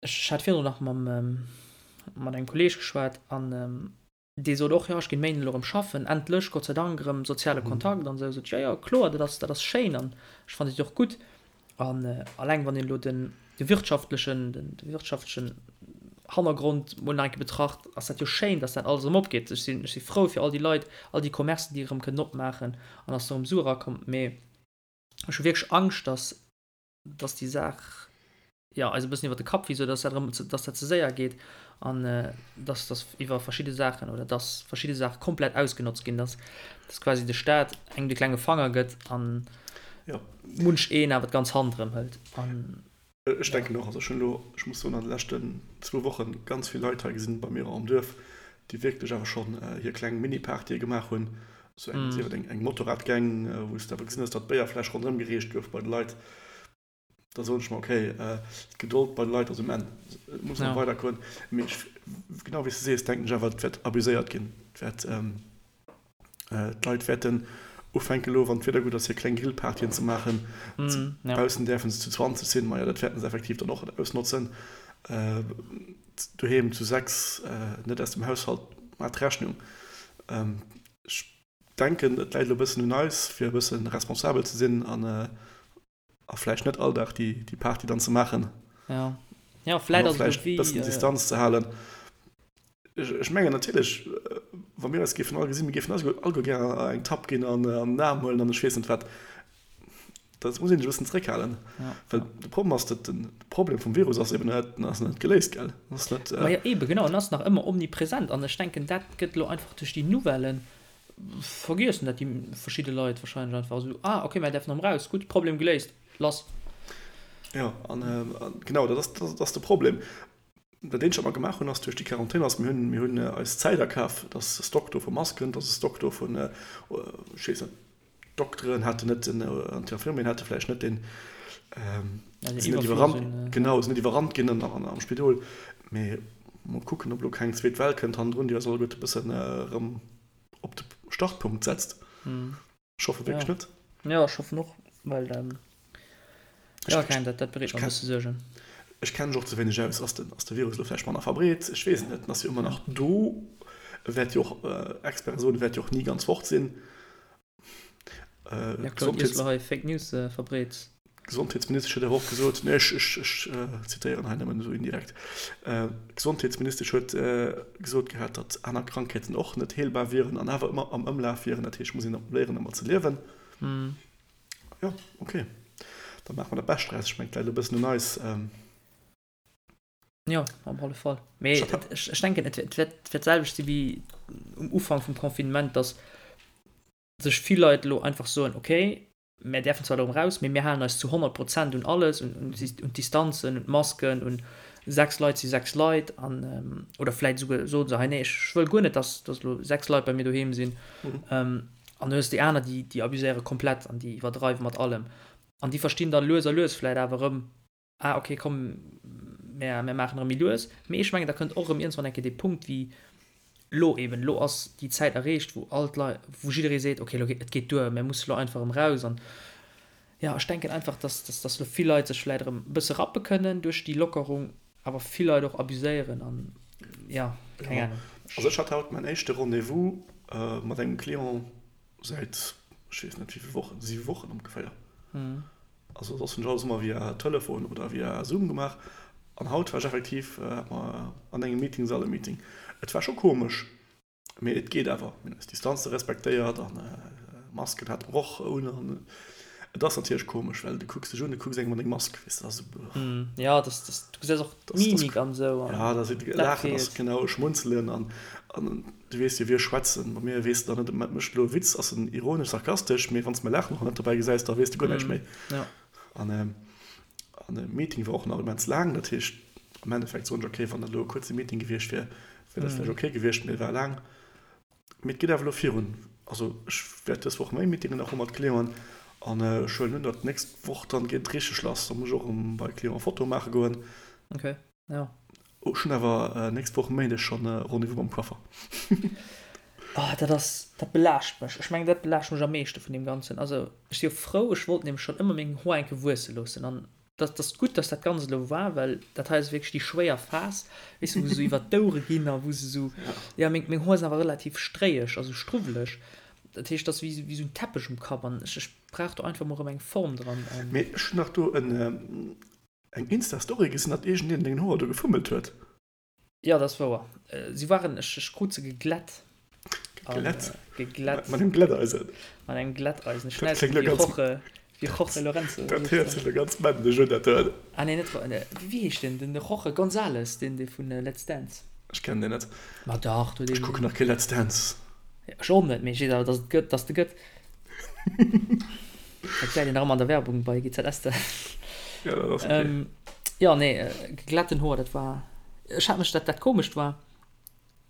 ech hat virdrun nach mam, mat engem Kolleeg geschwat an dee sot och, jo, ech ginn Méinden elo erëm schaffen, endlech, Gott sei Dank, erëm soziale Kontakt an esou. Sot ech, jo, jo, kloer, dat ass, dat ass schéin an ech fannen dat och gutt. An alleng wann een elo den, de wirtschaftlechen, den wirtschaftlechen Hannergrond mol nach eng Kéier betracht, ass dat jo schéin, dass dat alles erëm opgeet. Ech sinn, ech si frou fir all déi Leit, all déi Commercen, déi erëm kënnen opmaachen an dass do erëm Sue erakommen. Mee ech hu wierklech Angscht, dass, dass déi Saach, jo, eis e bëssen iwwer de Kapp wiisst oder dass dat erëm, dass dat ze séier geet an dass, dass iwwer verschidde Saachen oder dass verschidde Saache komplett ausgenotzt ginn, dass, dass quasi de Staat engem de klenge Fanger gëtt an munch een awer d'ganz Hand erëm hëlt an. Ech denken och, also ech hunn elo, ech muss soen, an de leschten zwou Woche ganz vill Leit hei gesinn bei mir am Duerf, déi wierklech awer schonn hir kleng Mini-Partye gemaach hunn, esou eng, sief et eng Motorradgang, wou s de awer gesinn hues, datt d'Béierfläsch ronderëm gereecht gouf bei de Leit. Da soen ech mer, okay, d'Gedold bei de Leit ass um Enn, et muss nach weidergoen. Mee ech, genau wéi s de sees, denken ech awer, et wäert abuséiert ginn, et wäert. D'Leit wäerten ufänken elo, wann d'Wieder gutt ass, hir kleng Grillpartyen ze maachen. Baussen däerfe se zu 20 sinn, majo dat wäerten se effektiv dann och ausnotzen. Doheem zu 6, net aus dem Haushalt, maach d'Rechnung. Ech denken, et läit elo e bëssen un eis, fir e bësse responsabel ze sinn an A vläicht net all Dag déi Party dann ze maachen. Ja, ja vläicht ass et wéi. Bëssen Distanz ze halen. Ech mengen natierlech, wa mir eis géifen all gesinn, mir géifen eis alleguer gär eng Tapp ginn an an den Aarm huelen an ech weess net wat. Dat muss een sech e bëssen zeréckhalen. Well de Problem ass, datt den Problem vum Virus ass eben net, ass net geléist, gell? Ass net. Ma jo eben, genau, en ass nach ëmmer omnipresent an ech denken, dat gëtt elo einfach duerch déi Nouvellen Vergiessen dat déi verschidde Leit wahrscheinlech einfach esou, ah ok, mär däerfen erëm raus, gutt, Problem geléist, lass. Jo, an genau dat ass, dat ass de Problem. Dat eenzegt wat mer gemaach hunn ass duerch déi Quarantän ass, mir hunn, mir hunn eis Zäit akaf, et ass e Stock do vu Masken, et ass e Stock do vun, ech weess net, d'Dokteren haten net den, an d'Infirmieren hate vläicht net den, sinn net iwwerrannt, genau, sinn net iwwerrannt ginn am Spidol. Mee mol kucken, ob elo keng zweet Well kënnt hannendrun, déi eis alleguerte e bëssen erëm op de Startpunkt setzt. Ech hoffe wierklech net. Jo, ech hoffen och, well jo, keng, dat bereet mer e bësse Suergen. Ech kenne mech och ze wéineg aus. Ass de Virus elo vläicht manner verbreet? Ech weess et net. En ass jo ëmmer nach do. E wäert jo och, Experte soen, e wäert jo och ni ganz fort sinn. Ja, Claude, iers du hei Fake News verbreets. D'Gesondheetsministesch huet awer och gesot, nee, ech, ech, ech zitéieren hei nëmmen esou indirekt, d'Gesondheetsministesch huet gesot gehat, datt aner Krankheeten och net heelbar wieren an awer ëmmer am Ëmlaf wieren. Dat heescht, et muss een léieren, domat ze liewen. Jo, okay, da maache mer dat Bescht draus. Ech mengen, et läit elo e bëssen un eis. Jo, op alle Fall. Mee ech, ech denken, et wäert, et wäert d'selwecht si wéi um Ufank vum Confinement, datt sech vill Leit elo einfach soen, okay, Mär däerfen zwar elo erëm raus, mee mir halen eis zu 100 Prozent un alles, un d'Distanzen, un d'Masken, un 6 Leit si 6 Leit an, oder vläit esouguer soe se hei, nee, ech wëll guer net, dass dass elo 6 Leit bei mir doheem sinn. An du hues déi aner, déi déi abuséiere komplett an déi iwwerdreiwe mat allem an déi verstinn dann lues a lues vläit awer erëm, ah ok komm mär mär maachen erëm méi lues, mee ech mengen da kënnt och erëm iergendwann eng Kéier dee Punkt wéi lo eben, lo ass déi Zäit erreecht wou all d'Leit, wou jidderee seet ok lo geet et geet duer, mär musse lo einfach erëm raus an jo ech denken einfach dass dass dass lo vill Leit sech vläit erëm e bësse rappe kënnen duerch déi Lockerung, awer vill Leit och abuséieren an jo keng Ahnung. Also ech hat haut mäin éischte Rendez-vous mat engem Client säit ech weess net wéi vill Wochen, 7 Wochen ongeféier. Also soss hunn ech alles ëmmer via Telefon oder via Zoom gemaach. An haut war ech effektiv, hat mer an engem Meetingsall e Meeting. Et war scho komesch, mee et geet awer. Mir hunn eis Distanze respektéiert an Masken hate mer och un. An et ass natierlech komesch, well du kucks dech un, du kucks engem an deng Mask, weess de, dat ass esou. Jo, das, das, du gesäis och d'Mimik an esou. Ja, da si laachen ass genau, schmunzelen an du weess jo, wir schwätzen. Bei mir weess de dann net, mécht elo e Witz, ass en ironesch, sarkastesch, mee wann s de mäi Laachen och net dobäi gesäis, da weess de guer näischt méi. An an de Meeting war och nach immens laang, dat heescht am Endeffekt soen ech, okay, wann dat elo e kuerze Meeting gewiescht wier, wier dat vläicht okay gewiescht, mee e war laang. Mee et geet awer elo virun. Also ech wäert dës Woch méi Meetingen nach hu mat Clienten an ech huelen un, datt d'nächst Woch dann geet et richteg lass. Da muss ech och erëm bei Clienten Fotoe maache goen. Okay, jo. Ech hunn awer nächst Woch Méindeg schonn e Rendez-vous mam Coiffer. Oh, dat ass, dat belaascht mech. Ech mengen, dat belaascht mech am meeschte vun deem Ganzen. Also ech si jo frou, ech wollt nämlech schonn ëmmer meng Hoer eng Kéier wuesse loossen an dat ass gutt, dass dat Ganzt elo war, well dat hei ass wierklech déi schwéier Phas, weess de, wou se esou iwwert d'Ouere ginn a wou se esou, jo, meng, meng Hoer sinn awer relativ stréieg, also struwweleg. Dat heescht, dat ass wéi, wéi esou en Teppech um Kapp an ech, ech brauch do einfach mol erëm eng Form dran. Mee ech hunn nach do en, eng Insta-Story gesinn, datt iergendeen un dengen Hoer do gefummelt huet. Jo, dat ass wouer. Si waren, ech, ech krut se geglätt. Geglätt? Geglätt. Mat engem Glätteisen? Mat engem Glätteisen. Ech schneiden se wéi Jorge, wéi Jorge Lorenzo. Dat héiert sech elo ganz männlech un, dat do. Ah nee, net, wéi heescht deen? Den Jorge González, deen dee vun Let's Dance. Ech kennen deen net. Ma dach, du deen. Ech kucken nach kee Let's Dance. Ech och net, mee ech weess awer, dass et gëtt, dass de gëtt. Dat gesäit een nach ëmmer an der Werbung bei GZSZ. Ja, dat ass okay. Jo, nee, geglätten Hoer, dat war, ech hat mech, dat, dat Komescht war,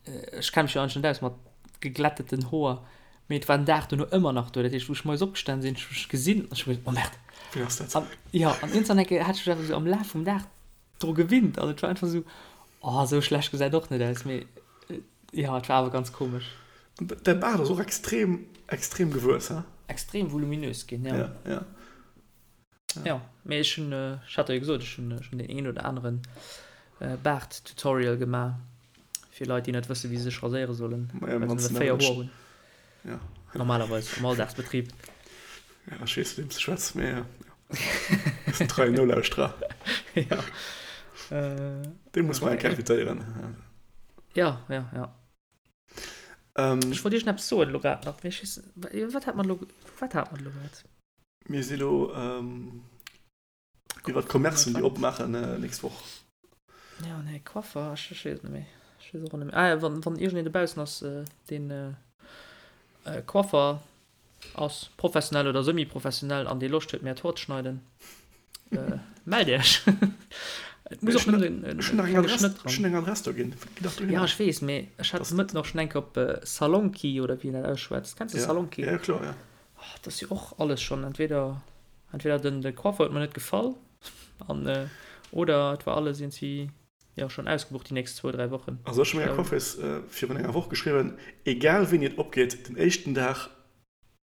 ech kenne mech jo eigentlech net aus mat geglätteten Hoer, mee et war den Dag dono ëmmer nach do. Dat heescht, wou ech moies opgestan sinn, ech hu mech gesinn an ech hu geduecht, oh Merde. Wéi ass dat? An, jo, an iergendwann eng Kéier hat ech mech einfach esou am Laf vum Dag dru gewinnt an et war einfach esou, oh, esou schlecht gesäit och net aus, mee jo, et war awer ganz komesch. Däi Baart ass och extrem, extrem gewuess, he? Extrem voluminös ginn, jo. Ja, ja. Ja, mee ech hunn, ech hat der jo gesot, ech hunn schonn deen een oder aneren Baart-Tutorial gemaach fir Leit, déi net wëssen, wéi se sech raséiere sollen, well se nëmme 4 Hoer hunn. Ja. Normalerweis am Alldagsbetrib. Ja, ech weess, mat weem s de schwätz, mee ja. Ass en treien Nolauschterer. Ja. Dee muss mer eng Kéier invitéieren. Ja, ja, ja. Ech wollt iergend eppes soen elo grad nach, mee ech weess, wat hat mer elo, wat hat mer elo grad? Mir si lo iwwer d'Commercen, déi opmaachen nächst Woch. Ja, nee, Coiffer, ech weess et net méi. Ech weess och net méi. Ah ja, wann, wann iergendeen dobaussen ass, deen Coiffer ass, professionell oder semi-professionell, an dee Loscht huet, mär d'Hoer ze schneiden, mellt Iech. Et muss och nëmmen en klenge Schnëtt dran. Ech hunn eng Adress do ginn. Gitt dach dohinner. Ja, ech weess, mee ech hat de Mëtten och schonn eng Kéier op Salonki, oder wéi een dat ausschwätzt. Kenns de Salonki? Ja, kloer, ja. Oh, dat ass jo och alles schonn, entweder, entweder den, de Coiffer huet mer net gefall, an, oder et war alles iergendwéi, jo, schonn ausgebucht déi nächst zwou, dräi Wochen. Also ech hu menger Coiffeuse virun enger Woch geschriwwen, egal wéini et opgeet, den éischten Dag,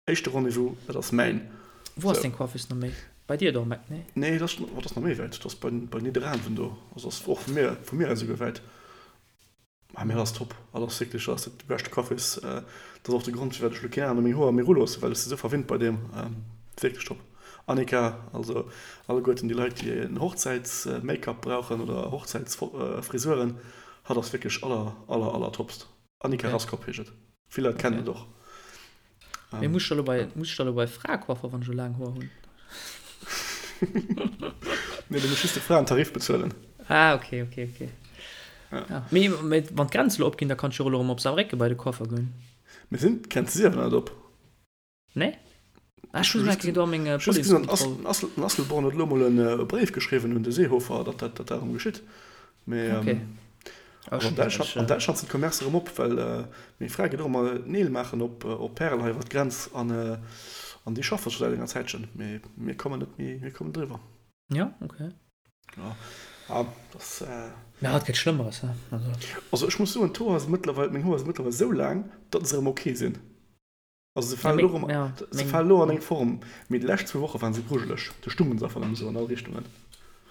éischte Rendez-vous, dat ass mäin. Wou ass deng Coiffeuse no méi? Bei dir do am Eck, nee? Nee, dat ass, oh, dat ass nach méi wäit, dat ass bei, bei Nidderaanwen do, also ass och vu mir, vu mir aus esouguer wäit. Ah, mee dat ass top. Dat ass wierklech, dat ass de beschte Coiffeuse. Dat ass och de Grond, firwat ech elo keen aneren meng Hoer méi ruloossen, well ech si sou verwinnt bei deem. Wierklech top. Annika, also alleguerten déi Leit, déi en Hochzäits-Make-up brauchen oder Hochzäitsfrisuren, hatt ass wierklech aller, aller, aller topst. Annika Okay. Raskop heescht et. Vill Leit kennen Okay. et och. Mee muss ech da lo bei, muss ech da lo bei Fraecoiffer, wann ech elo laang Hoer hunn? Nee, du muss just de Fraentarif bezuelen. Ah, okay, okay, okay. Ja. Ja. Mee, mee wann d'Grenze lo opginn, da kann ech jo och elo erëm op Saarbrécken bei de Coiffer goen. Mee sinn d'Grenze si awer net op. Nee? Ah, ech Ech hu hunn just do meng just gesinn, datt Policekontroll. den Asselborn huet elo mol e Bréif geschriwwen un de Seehofer, datt dat dat erëm geschitt. Mee Okay. Ah, also an Däitschland, an Däitschland sinn d'Commercë erëm op, well meng Fra geet och ëmmer d'Neel maachen op op Pärel hei iwwer d'Grenz an an déi schaffe scho säit enger Zäitchen, mee mir kommen net méi, mir kommen driwwer. Ja, okay. Ja, ah, das. Mä et gëtt Schlëmmeres, he? Also. Also ech muss soen, d'Hoer si mëttlerweil, meng Hoer si mëttlerweil esou laang, datt se erëm ok sinn. Also se falen elo erëm, se falen elo an eng Form, mee déi lescht zwou Woche waren se grujeleg. Do stungen se einfach nëmme sou an all Richtungen.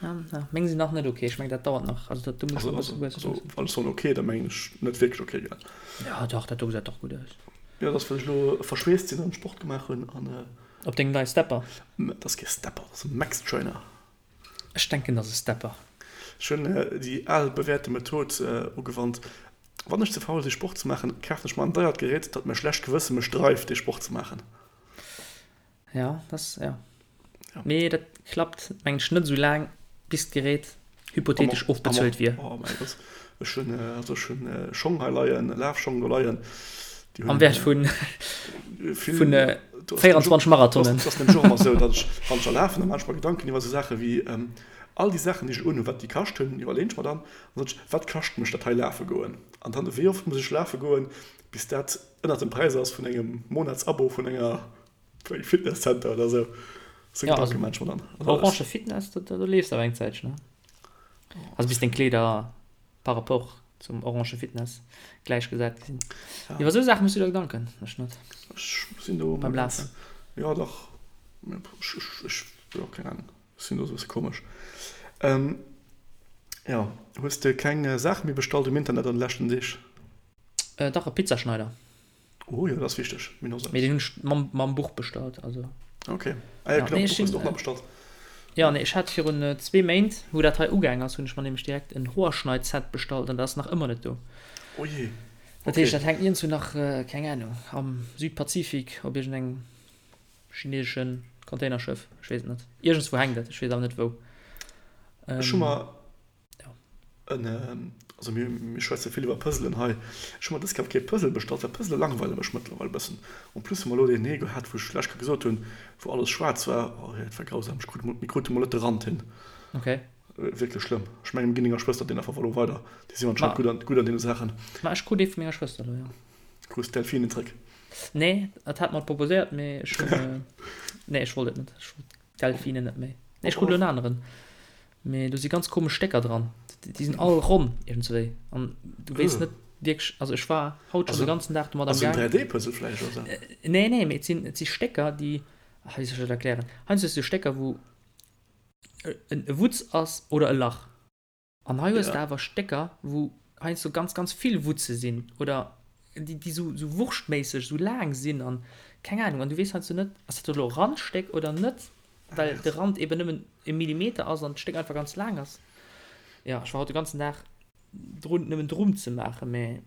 Ja, meng sinn nach net ok. Ech meng dat dauert nach. Also dat do muss Also, nach e also, bësse wuessen. also wann ech soen ok, da mengen ech net wierklech ok, gell? Ja dach, dat do gesäit dach gutt aus. Jo, dat ass well ech elo verschweesst sinn an Sport gemaach hunn an. Op dengem neie Stepper? Dat ass kee Stepper, dat ass e Max Trainer. Ech denken dat ass e Stepper. Ech hunn déi al bewährte Method ugewannt, Wann ech ze faul si Sport ze maachen, kafen ech mer en deiert Gerät, datt mäi schlecht Gewësse mech dreift dee Sport ze maachen. Ja, dat, ja. Mee dat klappt mengen ech net esou laang, bis d'Gerät hypothetesch ofbezuelt wier. Oh mäi Gott, ech hunn, also ech hunn Schong hei leien, Lafschong do leien, déi hunn Am Wäert vun, vill, vun do ass nämlech 24 och, Marathonen. dat ass nämlech och ëmmer esou, datt ech, wann ech da lafen, da maachen ech mer Gedanken iwwer esou Saache wéi all déi Saachen, déi ech unhunn, wat déi kascht hunn, iwwerleeën ech mer dann. An dann sot ech, Wat kascht mech dat hei lafe goen? An dann, wéi oft muss ech lafe goen, bis dat ënnert dem Präis ass vun engem Monatsabo vun enger, vun engem Fitnesscenter oder esou? Esou Ja, Gedanke also maache ech mer dann. Also Orange ech. Fitness, do, do leefs de awer eng Zäitchen, ne? Also bis deng Kleeder par rapport zum Orange Fitness gläichgesat gi sinn. Ja. Iwwer esou Saache méchs du der Gedanken, ech net. Ech sinn do Beim ëmmer ganz, Lafen. jo dach, ech, ech, ech, jo, keng Ahnung. Sinn do sou bësse komesch. Jo, hues de keng Saache méi bestallt um Internet an de leschten Deeg? Dach, e Pizzaschneider. Oh jo, dat ass wichteg. Mir hunn och sou Mee eppes. deen hunn ech mam, mam Buch bestallt, also. Ok. Ah jo, Ja, genau, nee, ech d'Buch hues sinn, de och nach bestallt. jo, nee, ech hat virun zwee Méint, wou dat hei ugaang ass, hunn ech mer nämlech direkt en Hoerschneid-Set bestallt an dat ass nach ëmmer net do. Oh jee, Dat heescht, ok. dat hänkt iergendwou nach, keng Ahnung, am Südpazifik op iergendengem Chineseschen Containerschëff, ech weess et net. Iergendswou hänkt et, ech weess awer net wou. Ech hu mer Ja. en, also mir, mir schwätze vill iwwer Puzzlen hei. Ech hu mer dës Kéier kee Puzzle bestallt, well Puzzle langweile mech mëttlerweil e bëssen. En plus hu mer elo deen ee gehat, wou ech lech Kéier gesot hunn, wou alles schwaarz war. Oh, dat war grausam. Ech krut emol, mir krute mol net de Rand hin. Okay. Wierklech schlëmm. Ech mengen, mir ginn denger Schwëster deen einfach elo weider. Déi sinn anscheinend Ma, gutt an, gutt an deene Saachen. ma ech krut ee vu menger Schwëster elo, jo. Krus d'Delfinen zréck? Nee, et hat mer proposéiert, mee ech hunn, nee, ech wollt et net. Ech wollt d'Delfinen net méi. Nee, ech krut elo en aneren. Mee do si ganz komesch Stécker dran. Déi sinn all ronn iergendswéi. An du weess net wierklech, also ech war haut schonn de ganzen Dag domat am Ass en Gaang. 3D-Puzzle vläicht oder sou? Nee, nee, mee et sinn, et si Stécker, déi, ah, wéi soll ech dat erklären? Heiansdo hues du Stécker, wou e Wutz ass oder e Lach. An hei hues de awer Stécker, wou heiansdo ganz, ganz vill Wutze sinn oder déi, déi sou, sou wurschtméisseg sou laang sinn an keng Ahnung. An du weess heiansdo net, ass dat elo e Randstéck oder net, well de Rand eben nëmmen e Millimeter ass an d'Stéck einfach ganz laang ass. Jo, ech war haut de ganzen Dag drun, nëmmen drum ze maachen, mä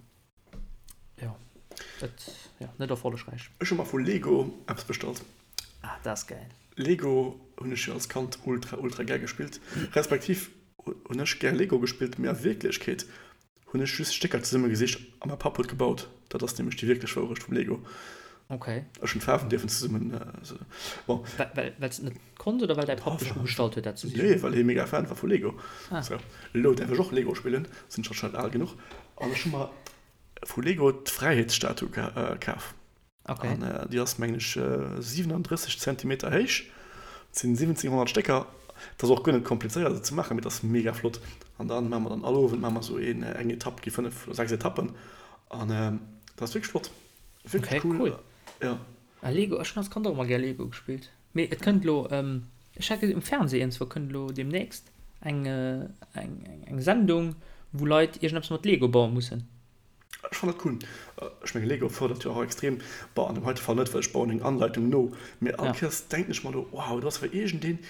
jo, et, jo, net erfollegräich. Ech hu mer vu Lego eppes bestallt. Ah, dat ass gäil. Lego hunn ech jo als Kand ultra ultra gär gespillt, respektiv hunn ech gär Lego gespillt, mee a Wierklechkeet hunn ech just Stécker zesumme gesicht a mäi Papp huet gebaut. Dat ass nämlech déi wierklech Wourecht vum Lego. Okay. Ech hunn d'Faarwen dierfen zesummen, bon. Well well s de net konns oder well däi Papp dech ugestallt huet dat ze sichen? Nee, well hie mega Fan war vu Lego. Ah. Sou, elo däerf ech och Lego spillen, sinn ech anscheinend al genuch. An ech hu mer vu Lego d'Fräiheetsstatue kaf. Okay. An déi ass, mengen ech, 37 Zentimeter héich. Et sinn 1700 Stécker. Et ass och guer net komplizéiert se ze maachen, mee et ass mega flott. An dann maache mer dann all Owend maache mer esou een, eng Etapp, gi 5 oder 6 Etappen. An dat ass wierklech flott. Wierklech Okay, cool. cool. Ja. Ah, Lego, ech hunn als Kand och ëmmer gär Lego gespillt. Mee et kënnt elo, ech hat gesinn um Fernseh iergendzwou kënnt elo deemnächst eng, eng, eng Sendung, wou Leit iergendeppes mat Lego baue mussen. Ech fannen dat cool. Ech mengen Lego fërdert jo och extrem, bon an dem heite Fall net, well ech bauen eng Anleitung no, mee all Kéiers denken ech mer do, wow, do ass awer iergendeen,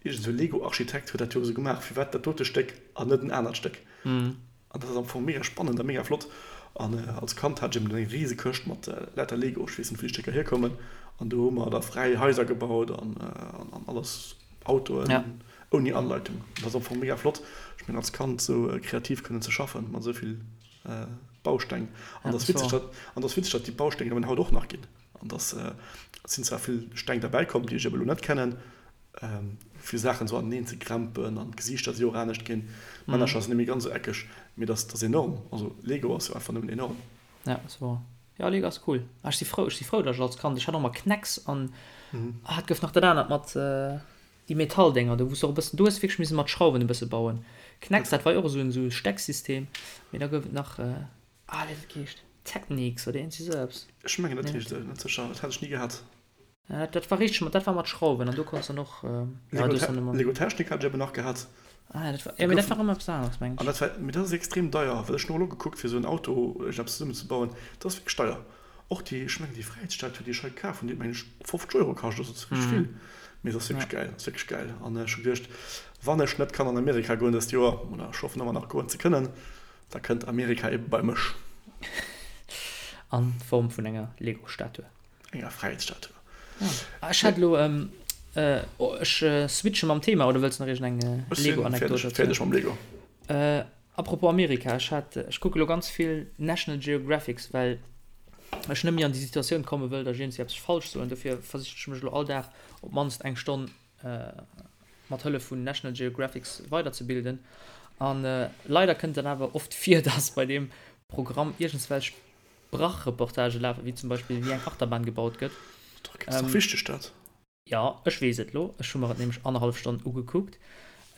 iergend esou Lego-Architekt huet dat jo esou gemaach, firwat dat dote Stéck an net en anert Stéck? An dat ass am Fong mega spannend a mega flott. An als Kand hat ech eben eng rise Këscht mat lauter Lego, ech weess net wou déi Stécker hierkommen, an do hu mer da fräi Haiser gebaut an alles, Autoen ouni Anleitung. Dat ass am Fong mega flott, ech mengen als Kand esou kreativ kënnen ze schaffen mat esou vill Bausteng. An dat ass witzeg, an dat ass witzeg, datt déi Bausteng eben haut och nach ginn. An dass sinn zwar vill Steng derbäi komm, déi ech eben elo net kennen, fir Saachen esou aneneen ze krempen an d'Gesiichter si och anescht ginn, d'Männercher sinn net méi ganz esou eckeg, mee dat ass enorm. Also Lego ass jo einfach nëmmen enorm. Ja, ass wouer. Jo, Lego ass cool. Ah, ech si frou, ech si frou, datt ech als Kand, ech hat och ëmmer K'Nex an, ah, et gouf nach dat anert mat déi Metalldénger do, wou s de och e bëssen, do hues de wierklech misse mat Schrauwen e bësse bauen. K'Nex, dat war jo och esou en esou Stecksystem, mee da gouf et nach, ah, wéi huet dat geheescht? Technics oder iergendwéi esou eppes. Ech mengen dat heescht esou, net sécher, dat hat ech ni gehat. Ja, dat war richteg mat, dat war mat Schrauwen an do konns dann och, ja, do hues dann ëmmer. Lego Technic hat ech eben nach gehat. Ah ja, dat war, ja, mee dat war ëmmer eppes aneres, mengen ech. An dat war, mee dat ass extrem deier, well ech hunn och elo gekuckt fir esou en Auto iergendeppes zesummenzebauen, dat ass wierklech deier. Och déi, ech mengen déi Fräiheetsstatue déi ech hei kaf hunn, déi huet mengen ech 50 Euro kascht, also dat ass wierklech vill, mee se ass wierklech gäil, ass wierklech gäil. An ech hu geduecht, wann ech net kann an Amerika goen dëst Joer, oder ech hoffen ëmmer nach goen ze kënnen, da kënnt Amerika ebe bei mech. An Form vun enger Lego-Statue. Enger Fräiheetsstatue. Ah, ech hat elo, ech switche mam Thema, oder wëlls de nach iergend eng Lego-Anekdot erzielen? Ech sinn fäerdeg mam Lego. Apropos Amerika, ech hat, ech kucke lo ganz vill National Geographics, well ech net méi an déi Situatioun komme wëll, datt ech iergendwéi eppes falsch soen. Dofir versichen ech mech elo all Dag op d'mannst eng Stonn mat Hëllef vun National Geographics weiderzebilden. An leider kënnt dann awer oft vir, datt bei deem Programm iergendswelch Brach-Reportagë lafen, wéi zum Beispill wéi eng Achterbahn gebaut gëtt. Dach, ass dach wichteg dat. Jo, ech weess et lo. Ech hu mer et nämlech annerhallef Stonn ugekuckt.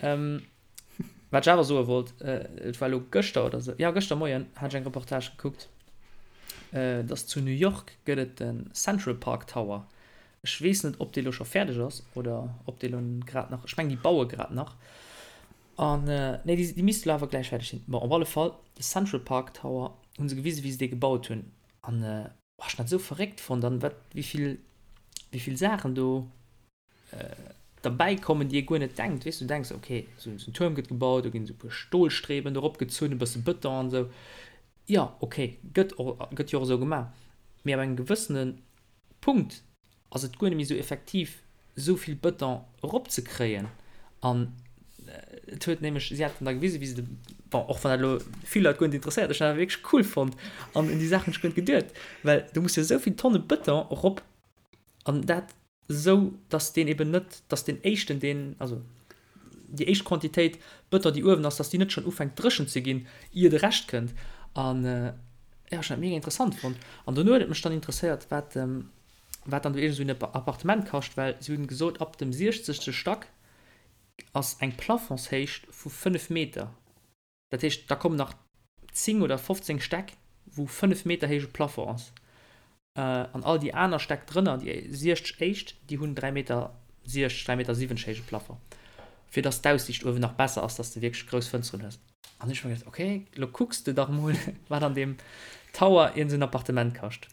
Wat ech awer soe wollt, et war elo gëschter oder sou, jo gëschter Moien hat ech eng Reportage gekuckt, dass zu New York gëtt et de Central Park Tower. Ech weess net, ob dee lo scho fäerdeg ass oder ob dee lo grad nach, ech mengen déi baue grad nach. An, nee, déi, déi misste lo awer gläich fäerdeg sinn. Bon, op alle Fall, de Central Park Tower hu se gewisen, wéi se dee gebaut hunn. An Oh, ech hun dat esou verréckt fonnt an wat wéivill wéivill Saachen do derbäi kommen, déi ee guer net denkt. Weess du, du denks ok, esou en Tuerm gëtt gebaut, do ginn esou e puer Stolstreben do eropgezunn, e bësse Bëton an esou. Jo, ok, gëtt och gëtt jo och esou gemaach. Mee ab engem gewëssene Punkt ass et guer net méi esou effektiv esou vill Bëton eropzekréien an et huet nämlech, si haten da gewisen, wéi se de, bon, och wann dat elo vill Leit guer net interesséiert, ech hunn dat awer wierklech cool fonnt an un déi Saach hunn ech guer net geduet, well du muss jo esou vill Tonne Bëton erop an dat esou, datt deen eben net, datt deen éischten, deen, also déi éischt Quantitéit Bëton, déi uewen ass, datt déi net schonn ufänkt dréchen ze ginn, ier de Rescht kënnt. An jo, ech hunn dat mega interessant fonnt. An dono huet et mech dann interesséiert, wat, wat dann do iergend esou en Appartement kascht, well si hunn gesot, ab dem siechzegste Stack ass eng Plafondshéicht vu 5 Meter. Dat heescht, da kommen nach 10 oder 15 Stäck, wou 5 Meter héije Plafond ass. An all déi aner Stäck drënner, déi 60 éischt, déi hunn 3 Meter 60, 3 Meter 70 héije Plafond, fir dass d'Aussiicht uewen nach besser ass, dass de wierklech grouss Fënsteren hues. An ech hu mer geduecht, okay, lo kucks de dach mol, wat an deem Tower iergend esou en Appartement kascht.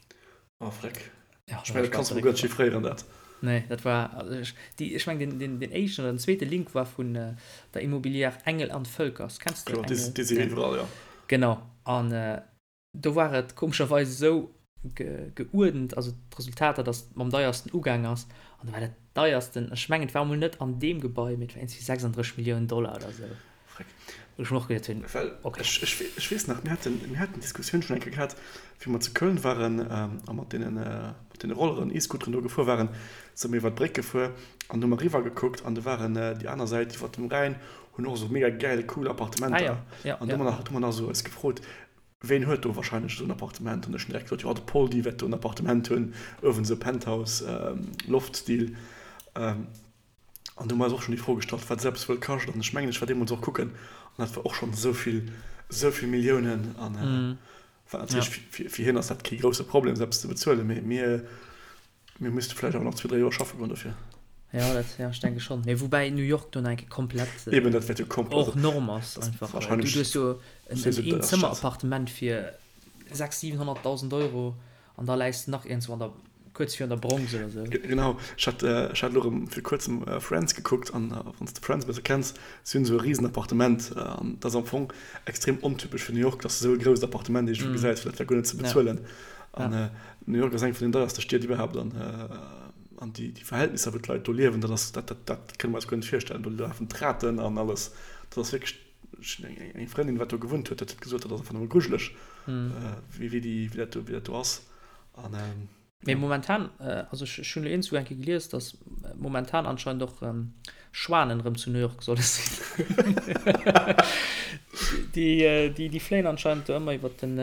Oh freck. Ja, ech mengen, dat kanns de mol guer net chiffréieren dat. Nee, dat war, also ech, déi, ech mengen den, den, den éischten oder den zweete Link war vun der Immobilière Engel an Völkers. Kenns de Kloer, déi, déi si iwwerall, jo. Genau. An do war et komescherweis esou ge, geuerdent, also d'Resultater, datt et mam deiersten ugaang ass. An do war dat deiersten, ech mengen et war emol net an deem Gebai, mee et war iergendwéi 36 Milliounen Dollar oder esou. Freck. Wou ech mer och geduet hunn, Well okay. ech, ech, ech weess nach, mir haten, mir haten d'Diskussioun schonn eng Kéier gehat, wéi mer zu Köln waren a mat deenen, mat deene Rolleren, E-Scooteren do gefuer waren, si mer iwwer d'Bréck gefuer an hu mer eriwwer gekuckt an do waren déi aner Säit iwwer dem Rhäin hunn och esou mega gäil, cool Appartementer. Ah ja, ja, An do hu mer nach, do hu mer nach esou eis gefrot, ween huet do wahrscheinlech esou en Appartement? An ech hunn direkt gesot, jo, de Poldi wäert do en Appartement hunn, uewen esou Penthouse, Loft-Stil. An do hu mer eis och schonn déi Fro gestallt, wat esou eppes wuel kascht. An ech mengen, ech war deemools och kucken, an dat war och schonn esou vill, esou vill Milliounen. An wat natierlech fir, fir hien ass dat kee grousse Problem, esou eppes ze bezuelen, mee mir, mir misste vläicht awer nach zwee, dräi Joer schaffe goen dofir. Jo, dat, jo, ech denke schonn. Mee woubäi New York do nach eng Kéier komplett Eben, dat wäert jo komplett hors norme ass einfach. Du hues jo en Eenzëmmerappartement fir. 600.000, 700.000 Euro an da läis de nach iergendwou an der, kuerz virun der Bronx oder sou. Genau, ech hat, ech hat elo erëm fir kuerzem Friends gekuckt an wann s de Friends e bësse kenns, si hunn esou e risen Appartement an dat ass am Fong extrem ontypesch fir New York, dass de esou e grousst Appartement iergendwou gesäis, well dat war guer net ze bezuelen. An New York ass eng vun den deierste Stied iwwerhaapt an an déi déi Verhältnisser wou d'Leit do liewen, dat ass, dat dat dat kënne mer eis guer net virstellen. Do lafen d'Raten an alles, dat ass wierklech, ech hunn eng eng Frëndin wat do gewunnt huet, dat huet gesot, dat ass einfach nëmme grujeleg wéi wéi déi wéi dat do wéi dat do ass an. Mee momentan, also ech hunn elo iergendzwou eng Kéier gelies, datt momentan anscheinend och Schwanen erëm zu New York solle sinn. Déi, déi fléien anscheinend do ëmmer iwwer den,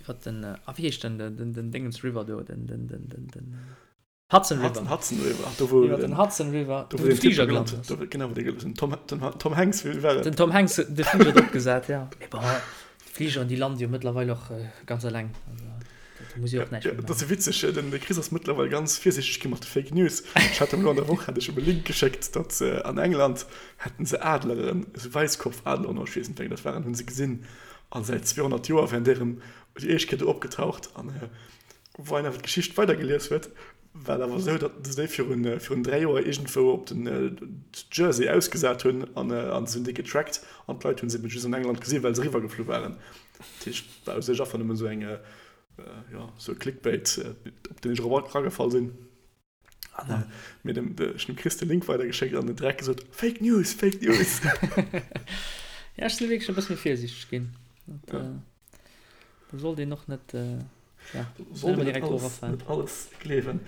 iwwer den, ah wéi heescht denn den, den Dingens River do, den, den, den, den, den Hudson River. Hudson River, do wou iwwer den Hudson River, do wou de Fliger gelant ass. Genau, wou den Tom, den Tom Hanks, wéi war et? Den Tom Hanks huet de Fliger drop gesat, ja. Mee bon, d'Fligeren, déi lande jo mëttlerweil och ganz eleng. Also, do muss ee och näischt méi maachen. Dat ass jo witzeg, den Chris ass mëttlerweil ganz virsiichteg gi mat de Fake News. Ech hat em elo an der Woch hat ech em e Link geschéckt, datt se an England hätten se Adleren, esou Wäisskopfadleren oder ech weess net wéi eng dat waren, hu se gesinn. A säit 200 Joer wären déi erëm déi éischt Kéier do opgetaucht. An Wou een awer d'Geschicht weidergelies huet, war et awer esou, datt se déi virun, virun 3 Joer iergendwou op den Jersey ausgesat hunn an, an se hunn déi getrackt an d'Leit hunn se eben just an England gesinn, well se eriwwergeflu waren. Dat heescht, et war u sech einfach nëmmen esou eng, jo, esou e Clickbait, op deen ech erop eragefall sinn. An mir dem, ech hunn dem Chris de Link weidergeschéckt an en direkt gesot, Fake News, Fake News! Ja, ech sinn wierklech e bësse méi virsiichteg ginn. Dat, do sollt een och net, ja, net ëmmer direkt drop erafalen. Net alles gleewen.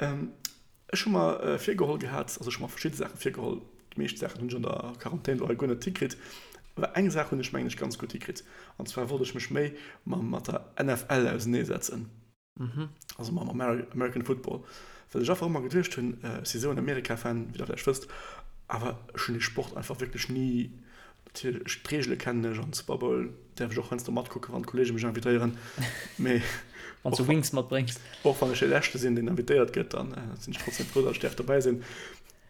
Ech hu mer virgeholl gehat, also ech hu mer verschidde Saache virgeholl, déi meescht Saachen hunn ech an der Quarantän elo hei guer net hikritt, awer eng Saach hunn ech mengen ech ganz gutt hikritt, an zwar wollt ech mech méi mat der NFL auseneesetzen. Also mam American Football. Well ech einfach ëmmer geduecht hunn, ech si sou en Amerika-Fan, wéi der vläicht wësst, awer ech hunn dee Sport einfach wierklech ni, natierlech, ech, d'Reegele kennen ech an Super Bowl däerf ech och heiansdo matkucken, wann d'Kolleege mech invitéieren, mee Wann s du Wings matbréngs. Och wann ech dee Leschte sinn, deen invitéiert gëtt, dann sinn ech trotzdem frou, datt ech däerf dobäi sinn.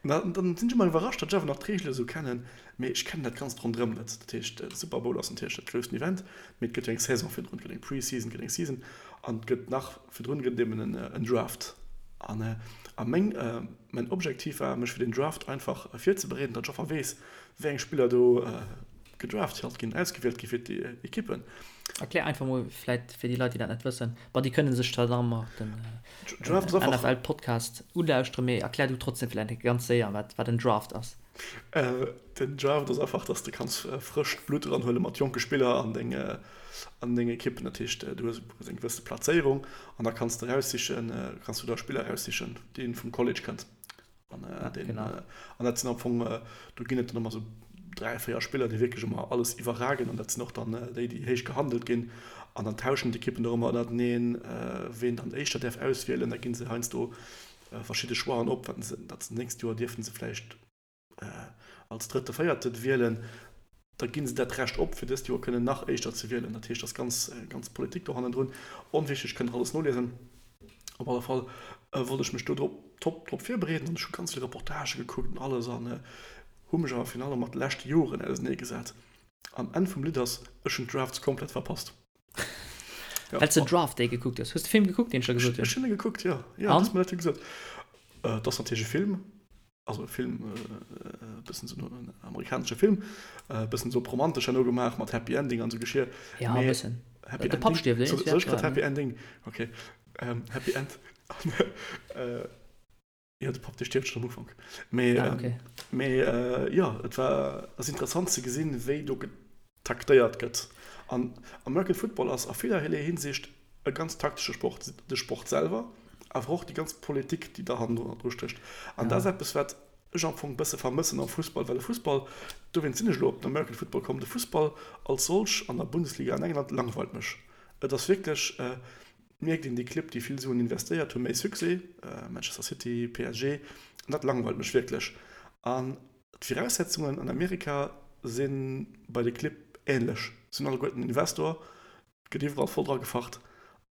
An dann sinn ech ëmmer iwwerrascht, datt ech awer nach d'Reegele sou kennen, mee ech kennen dat Ganzt ronderëm net. Dat heescht, de Super Bowl ass natierlech dat groussten Event, mee et gëtt jo eng Saison virdrun, et gëtt eng Pre-Season, et gëtt eng Season an et gëtt nach virdrun gëtt et eben en Draft. An a meng, mäin Objektiv war, mech fir den Draft einfach virzebereeden, datt ech einfach weess, wéi eng Spiller do gedraft halt ginn, ausgewielt gi fir d'Ekippen. Erklär einfach mol vläit fir déi Leit, déi dat net wëssen. Bon, déi kënne sech zwar nach ëmmer den NFL-Podcast ulauschteren, mee erklär du trotzdem vläit ganz séier, wat wat en Draft ass. Den Draft ass einfach, dass de kanns frëscht Blutt eranhuele mat jonke Spiller an deng an deng Ekippen. Dat heescht, du hues eng gewësse Plazéierung an da kanns de eraussichen, kanns du der Spiller eraussichen, dee vum College kënnt. An, äh, ja, den, genau. äh, an dat sinn am Fong, äh, do ginn et dann ëmmer sou 3, 4 Spiller, déi wierklech ëmmer alles iwwerragen an dat sinn och dann äh, déi, déi héich gehandelt ginn. An dann tauschen d'Ekippen och ëmmer ënnerteneen, äh, ween dann éischter däerf auswielen. Da gi se heiansdo äh, verschidde Choixen op, wat se, dat se nächst Joer dierfe se vläicht äh, als drëtte, véierte wielen. Da gi se dat Recht op, fir dëst Joer kënnen nach éischter ze wielen. Dat heescht, dat ass ganz, ganz Politik do hannendrun. Onwichtig, kënnt Der alles noliesen. Op alle Fall wollt ech mech do drop top drop virbereeden an ech hu ganz vill Reportagë gekuckt an alles an hu mech awer virun allem mat de leschte Joren ausenee gesat. An Enn vum Lidd ass, ech hunn d'Drafts komplett verpasst. Ja, Well s de Draft Day gekuckt hues. Hues de Film gekuckt, deen ech der gesot hunn? Ech hunn e gekuckt, jo. Jo, du hues mer dat jo gesot. Et ass natierlech e Film. Also e Film, e bëssen esou en amerikanesche Film, e bëssen esou op romantesch herno gemaach mat Happy Ending an esou Geschir. Ja, e bëssen. Happy Ending. De Papp stierft, eh? Soll ech grad Happy Ending? Ok. Happy End. Jo, de Papp, dee stierft schonn am Ufank. Mee, ah, okay. Mee jo, et war, ass interessant ze gesinn, wéi do getaktéiert gëtt. An American Football ass a villerlee Hinsicht e ganz taktesche Sport, de Sport selwer, awer och déi ganz Politik, déi da hannendru stécht. An dat ass eppes, wat ech am Fong e bësse vermëssen am Fussball, well de Fussball, dowéinst sinn ech elo op den American Football komm, de Fussball als solch an der Bundesliga an England langweilt mech. Et ass wierklech, et mierkt een, déi Clibb, déi vill Suen investéiert, hu méi Succès, Manchester City, PSG, an dat langweilt mech wierklech. An d'Viraussetzungen an Amerika si bei de Clibb änlech, se hunn alleguerten en Investor, Et gëtt iwwerall voll dra gefacht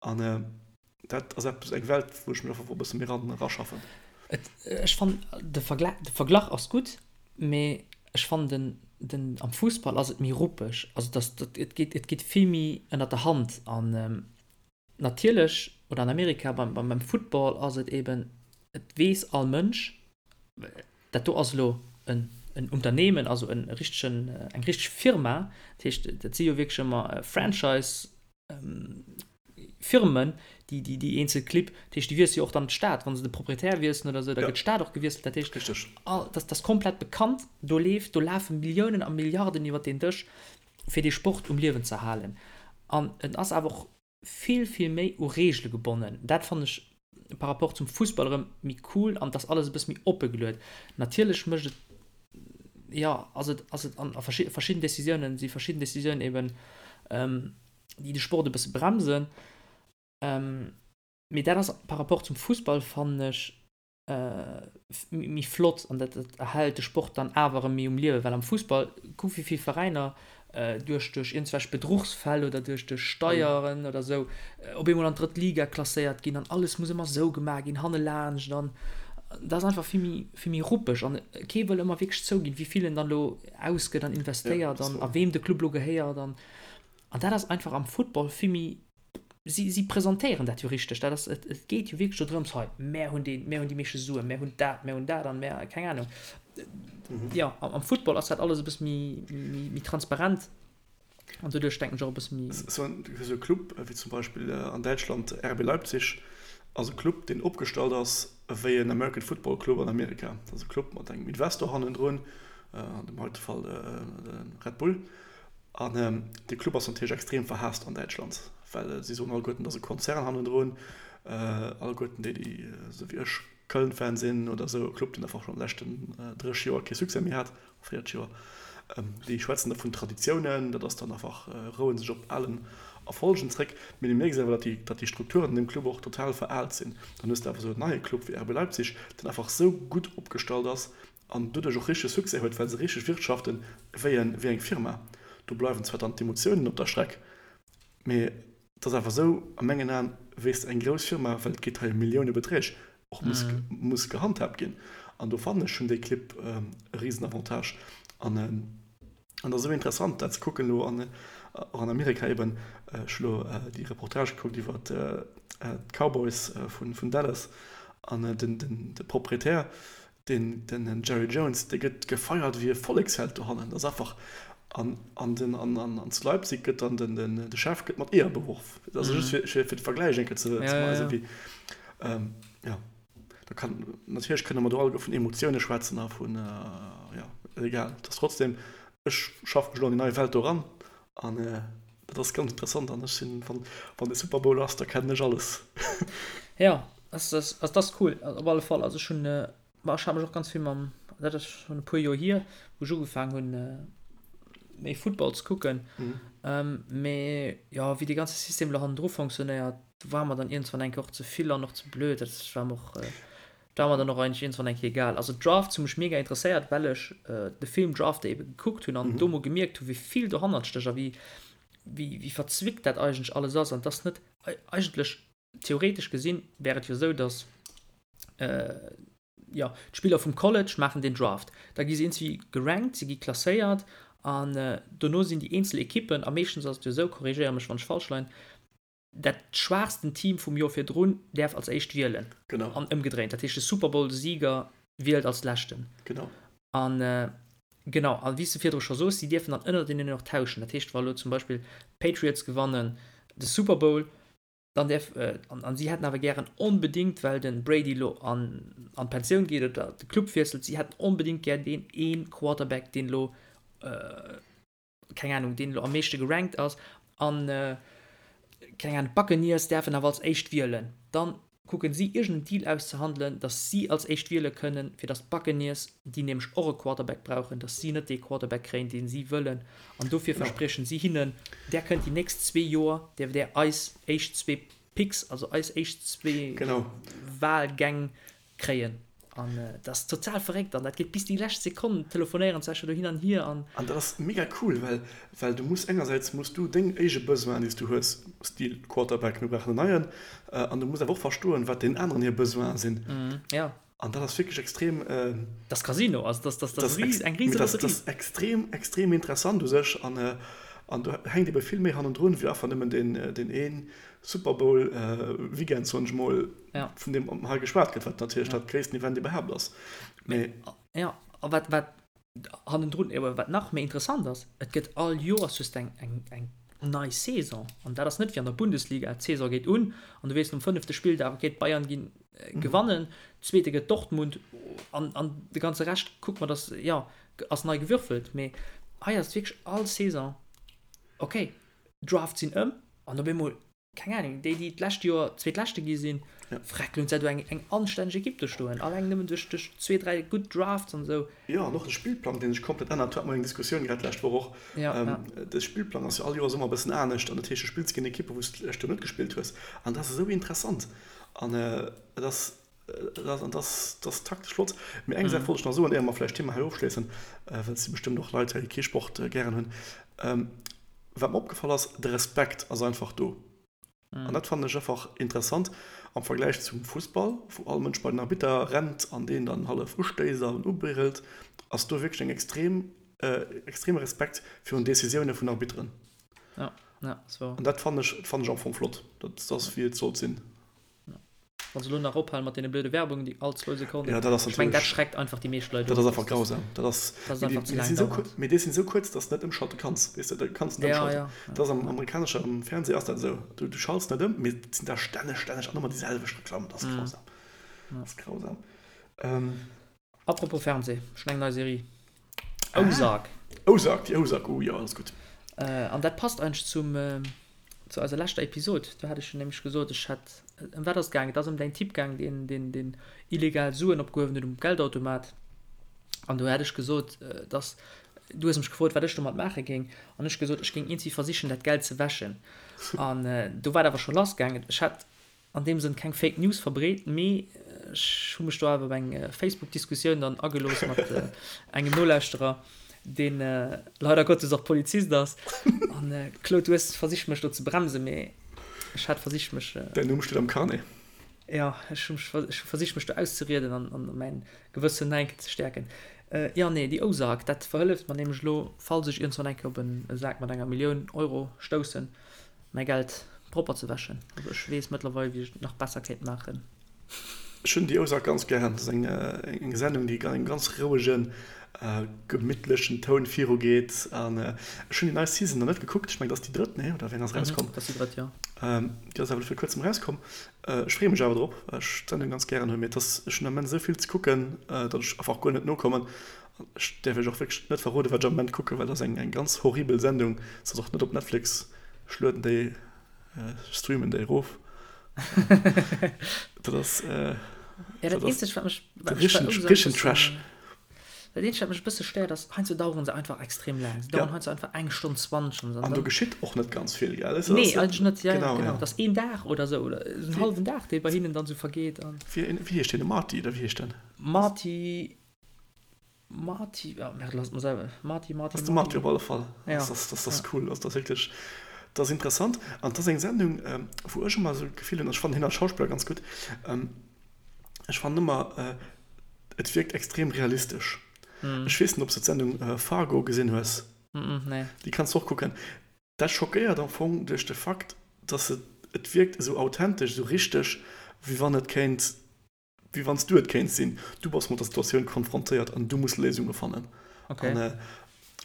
an dat ass eppes, eng Welt, wou ech mech einfach e bësse méi ran eraschaffen. Et, ech fannen, de Vergla, de Verglach ass gutt, mee ech fannen den. den, am Fussball ass et méi ruppeg, also dass, dat, et geet, et geet vill méi ënnert der Hand an natierlech, oder an Amerika beim, beim, beim Football ass et eben, et weess all Mënsch, dat do ass elo en, en Unternehmen, also en richtegen, eng richteg Firma, dat heescht, dat si jo wierklech ëmmer Franchise, Firmen, déi, déi, déi eenzel Clibb, dat heescht, déi wiessele jo och dann d'Stad, wa se de Proprietär wiesselen oder esou, da gëtt d'Stad och gewiesselt, dat heescht, Richtig. all, dat ass komplett bekannt, do leeft, do lafe Milliounen a Milliarden iwwer deen Dësch, fir dee Sport um Liewen ze halen. An en ass awer och vill, vill méi u Reegele gebonnen. Dat fannen ech par rapport zum Fussball erëm méi cool an et ass alles e bësse méi oppe geluet. Natierlech mécht et, jo, ass et, ass et an a verschidden Decisiounen, si verschidden Decisiounen eben, déi de Sport e bësse bremsen. Mee dat ass par rapport zum Fussball, fannen ech, méi flott an dat erhält de Sport dann awer erëm méi um Liewen, well am Fussball, kuck wéi vill Veräiner duerch duerch iergendwelch Bedruchsfäll oder duerch duerch Steieren oder esou op eemol an d'drëtt Liga klasséiert ginn an alles muss ëmmer esou gemaach ginn hannelaanscht an dat ass einfach vill méi vill méi ruppeg an kee wëll ëmmer wierklech zouginn, wéi vill en dann elo ausgëtt an investéiert an a weem de Club elo gehéiert an an dat ass einfach am Football vill méi Si, si presentéieren dat jo richteg. Dat ass, et, et geet jo wierklech do drëms, hei, mär hunn deen, mär hunn déi meeschte Suen, mär hunn dat, mär hunn dat an mär, keng Ahnung. Mhm. Jo, am, am Football ass dat alles e bësse méi, méi, méi transparent an doduerch denken ech och e bësse méi. Esou en, esou e Club wéi zum Beispill an Däitschland RB Leipzig ass e Club, deen opgestallt ass wéi en American Football Club an Amerika. Dat ass e Club mat engem Investor hannendrun, an dem heite Fall de Red Bull. An dee Club ass natierlech extrem verhaasst an Däitschland, well si soen alleguerten, et ass e Konzern hannendrun. Alleguerten déi, déi esou wéi ech Köln-Fan sinn oder esou, e Club, deen einfach schonn an de leschten 30 Joer kee Succès méi hat, 40 Joer, déi schwätzen da vun Traditiounen, dat ass dann einfach, roue sech op alen Erfolgen zréck. Mee du mierks awer, datt déi, datt déi Strukturen an deem Club och total veraalt sinn. Dann hues de awer esou en neie Club wéi RB Leipzig, deen einfach esou gutt opgestallt ass, an doduerch och richteg Succès huet, well se richteg wirtschaften wéi en, wéi eng Firma. Do bleiwen zwar dann d'Emotiounen op der Streck, mee et ass awer esou a mengen Aen, wéi s de eng grouss Firma, well et geet hei ëm Milliounebeträg, och muss, muss gehandhaabt ginn. An do fannen ech, hunn déi Clibb e Risenavantage. An an et ass esou interessant dat ze kucken elo an, och an Amerika eben, ech hu lo déi Reportage gekuckt iwwer d'Cowboys vun, vun Dallas an den, den, de Proprietär, Den den Jerry Jones, dee gëtt gefeiert wéi e Volleksheld dohannen. Dat ass einfach, an an den an an zu Leipzig gëtt dann den den de Chef gëtt mat Eeër beworf. Dat ass just fir fir de Vergläich eng Kéier ze ze weisen, wéi jo da kann natierlech kënne mer do alleguer vun Emotioune schwätzen a vun jo egal. Et ass trotzdem, ech schaffe mech elo an déi nei Welt do eran an dat ass ganz interessant an ech sinn, wann wann de Super Bowl ass, da kennen ech alles. Jo. Ass ass ass das cool op alle Fall. Also ech hunn ma ech hat mech och ganz vill mam dat ass schonn e puer Joer hier, wou ech ugefaang hunn méi Football ze kucken. Mee jo wéi dee ganze System elo hannendru fonctionnéiert, war mer dann iergendwann eng Kéier och ze vill an och ze blöd. Dat war mer och war mer dann och eigentlech iergendwann eng Kéier egal. Also Drafts hu mech mega interesséiert, well ech de Film Draft ebe gekuckt hunn an do mol gemierkt hu wéi vill dohannert stécht a wéi wéi wéi verzwickt dat eigentlech alles ass an dass net eigentlech Theoretesch gesinn wär et jo esou, datt jo d'Spiller vum College maachen den Draft, da gi se iergendwéi gerankt, se gi klasséiert an dono sinn déi eenzel Ekippen, a meeschtens ass et jo esou, korrigéier mech wann ech falsch leien, dat schwaachsten Team vum Joer virdrun däerf als éischt wielen. Genau. An ëmgedréint, dat heescht de Super Bowl-Sieger wielt als leschten. Genau. An genau, a wéi s de virdru scho soos, si dierfen dann ënnerteneen och tauschen. Dat heescht, wa elo zum Beispill d'Patriots gewannen de Super Bowl, Dann däerf, an si hätten awer gären onbedéngt, well de Brady elo an d'Pensioun geet oder de Club wiesselt, si hätten onbedéngt gär deen ee Quarterback, deen elo, keng Anung, deen elo am meeschte gerankt ass. An, keng Anung, d'Buccaneers däerfen awer als éischt wielen. Dann kucken si iergendeen Deal auszehandelen, datt si als éischt wiele kënnen, fir datt d'Buccaneers, déi nämlech och e Quarterback brauchen, datt si net dee Quarterback kréien, dee si wëllen. An dofir verspriechen si hinnen, Där kënnt déi nächst zwee Joer, däerft Där eis éischt zwee Picks, also eis éischt zwee Wahlgäng kréien. An dat ass total verréckt an dat geet bis déi lescht Sekonn, telefonéieren se sech do hin an hier. An dat ass mega cool, well well du muss engersäits muss du deng éige Besoinen, déi s du hues, Stil Quarterback, mir brauchen en neien, an du muss awer och verstoen, wat deenen aneren hir Besoinen sinn. Jo. An dat ass wierklech extrem. Dat ass Casino, also dat ass eng rise Lotterie. Dat ass extrem, extrem interessant u sech. An, an do hänkt ebe vill méi hannendrun, wéi einfach nëmmen deen, deen ee Super Bowl Weekend, soen ech mol, vun deem hei geschwat gëtt, wat natierlech dat gréissten Event iwwerhaapt ass. Mee. Jo, a wat, wat hannendrun, jo, wat nach méi interessant ass, et gëtt all Joers just eng, eng, eng nei Saison. An dat ass net wéi an der Bundesliga, d'Saison geet un an du weess nom fënnefte Spilldag, okay, d'Bayern ginn gewannen, Zweete gëtt Dortmund an, an de ganze Rescht kuckt mer, dass, jo, ass nei gewürfelt. Mee hei ass et wierklech all Saison, okay, d'Draft sinn ëm an op eemol keng Ahnung, déi, déi d'lescht Joer Zweetleschte gi sinn, freck, lo hunn se do eng, eng anstänneg Ekipp do stoen, alleng nëmmen duerch, duerch zwee, dräi gutt Drafts an esou. Jo, an och de Spillplang, dee sech komplett ännert, do hate mer eng Diskussioun grad d'lescht Woch och. Ja, ja. De Spillplang ass jo all Joers ëmmer e bëssen anescht an dat heescht, du spills géint Ekippe wou s de d'lescht Joer net gespillt hues an dat ass esou interessant an et ass, et ass, an dat ass, dat ass taktesch flott. Mee eng Saach wollt ech nach soen, éier mer vläicht d'Thema hei ofschléissen, well et si bestëmmt och Leit hei, déi kee Sport gären hunn. Wat mer opgefall ass, de Respekt ass einfach do. An dat fannen ech einfach interessant am Vergläich zum Fussball, wou all Mënsch bei den Arbitter rennt an deen dann hallef ustéisst an ubrüllt, ass do wierklech eng extrem, extreme Respekt virun Decisioune vun Arbitteren. Ja, ja, ass wouer. An dat fannen ech, fannen ech am Fong flott. Dat ass wéi et sollt sinn. Wann se elo nach ophalen mat deene blöde Werbungen, déi all zwou Sekonnen. Ja, dat ass Ech meng, dat schreckt einfach déi meescht Leit of. Dat ass einfach grausam. Dat ass, dat ass einfach ze laang dauernd. Mee déi sinn esou kuerz, dass de net ëmschalte kanns. Weess de, du kanns net ëmschalten. Ja, ja. Dat ass am amerikanesche Fernseh ass dat esou. Du, du schalts net ëm, mee et sinn der stänneg, stänneg an ëmmer déi selwecht Reklamm. Dat ass grausam. Dat ass grausam. Apropos Fernseh, ech hunn eng nei Serie. Ozark. Ozark, déi Ozark, oh jo, dat ass gutt. An dat passt eigentlech zum, zu eiser leschter Episod. Do hat ech jo nämlech gesot, ech hätt, ëm wat ass et gaangen? Et ass ëm däin Typ gaangen, deen, deen, deen illegal Suen opgehuewen huet um Geldautomat. An do hat ech gesot, dass, du hues mech gefrot, wat ech domat maache géing. An ech gesot, ech géing iergendwéi versichen, dat Geld ze wäschen. An do war et awer scho lassgaangen. Ech hat an deem Sënn keng Fake News verbreet, mee ech hu mech do awer op eng Facebook-Diskussioun dann agelooss mat engem Nolauschterer, dee leider Gottes och Polizist ass. An Claude, du hues versicht mech do ze bremsen, mee ech hat versicht mech. Däin Numm steet am Carnet. Jo, ech hu mech, ech hu versicht mech do auszerieden an an mäin Gewëssen nach eng Kéier ze stäerken. Jo, nee, déi Ozark, dat verhëlleft mer nämlech elo, falls ech iergendwann eng Kéier op e Sak mat enger Millioun Euro stoussen, mäi Geld propper ze wäschen. Also ech weess mëttlerweil wéi ech et nach besser kéint maachen. Ech hunn déi Ozark ganz gären. Dat ass eng Sendung déi an engem ganz rouegen, gemittlechen Toun viru geet. An ech hunn déi nei Season nach net gekuckt. Ech mengen dat ass déi drëtt, nee? Oder wéi eng ass erauskomm? Dat ass déi drëtt, jo. Déi ass awer elo vir kuerzem erauskomm. Ech freeë mech awer drop, well ech d'Sendung ganz gären hunn. Mee et ass, ech hunn am Moment esou vill ze kucken, datt ech einfach guer net nokommen. Ech däerf iech och wierklech net verroden, wat ech am Moment kucken, well dat ass eng ganz horribel Sendung. Se ass och net op Netflix. Ech lueden déi, ech streamen déi erof. Dat ass, Ja, dat eenzegt, wat mech, wat mech bei Ozark richtegen Trash. Dat eenzegt, wat mech e bësse stéiert, ass, heiansdo daueren se einfach extrem laang. Se daueren heiansdo einfach eng Stonn 20 an esou. An do geschitt och net ganz vill, gell? Nee, eigentlech net, ja, ja, genau. Dat ass een Dag oder esou, oder esou en hallwen Dag, dee bei hinnen dann esou vergeet. Wéi heescht deen? De Marty, oder wéi heescht den? Marty. Marty, oh merde, lass mer selwer. Marty, Marty, Ass de Marty op alle Fall. Ja. Das, das, das ass cool. Also, das ass wierklech, das ass interessant. An das ass eng Sendung, ähm, wou ech ëmmer esou d'Gefill hunn, ech fannen hien als Schauspiller ganz gutt, ähm, ech fannen ëmmer, äh, et wierkt extrem realistesch. Mm. Ech weess net, ob s de d'Sendung äh, Fargo gesinn hues. Mm -mm, nee. Déi kanns du och kucken. Dat schockéiert am Fong duerch de Fakt, dass et, et wierkt esou authentesch, esou richteg, wéi wann et kéint Wéi wann s du et kéints sinn. Du bass mat der Situatioun konfrontéiert an du muss Léisunge fannen. Okay. An,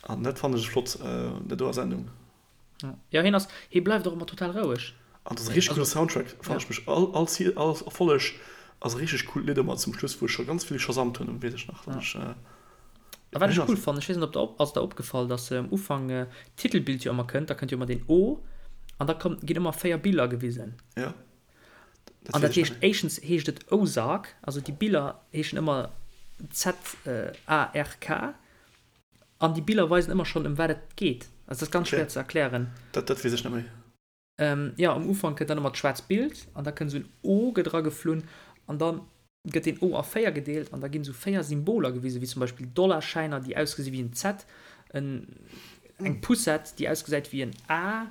an dat fannen ech flott un der doer Sendung. Ja, hien ass, hie bleift och ëmmer total roueg. An dat ass e richteg coole Soundtrack, fannen ech mech. All, all, all Erfolleg ass e richteg coolt Lidd ëmmer zum Schluss, wou ech scho ganz vill geshazamt hunn, weess ech nach, datt ech. A wat ech cool fannen, ech weess net, ob der op, ass der opgefall, datt am Ufank d'Titelbild jo ëmmer kënnt, da kënnt jo ëmmer deen O an da kommt, ginn ëmmer 4 Biller gewisen. Ja. An dat heescht, éischtens heescht et Ozark, also déi Biller heeschen ëmmer Z-A-R-K, an déi Biller weisen ëmmer schonn, ëm wat et geet. Also dat ass ganz schwéier ze erklären. Dat, dat weess ech net méi. Jo, um Ufank kënnt dann ëmmer d'schwaarzt Bild an da kënnt esou en O gëtt erageflunn an da gëtt deen O a 4 gedeelt an da ginn esou 4 Symboler gewisen, wéi zum Beispill Dollarschäiner, déi ausgesi wéi en Z, en, eng Poussette, déi ausgesäit wéi en A.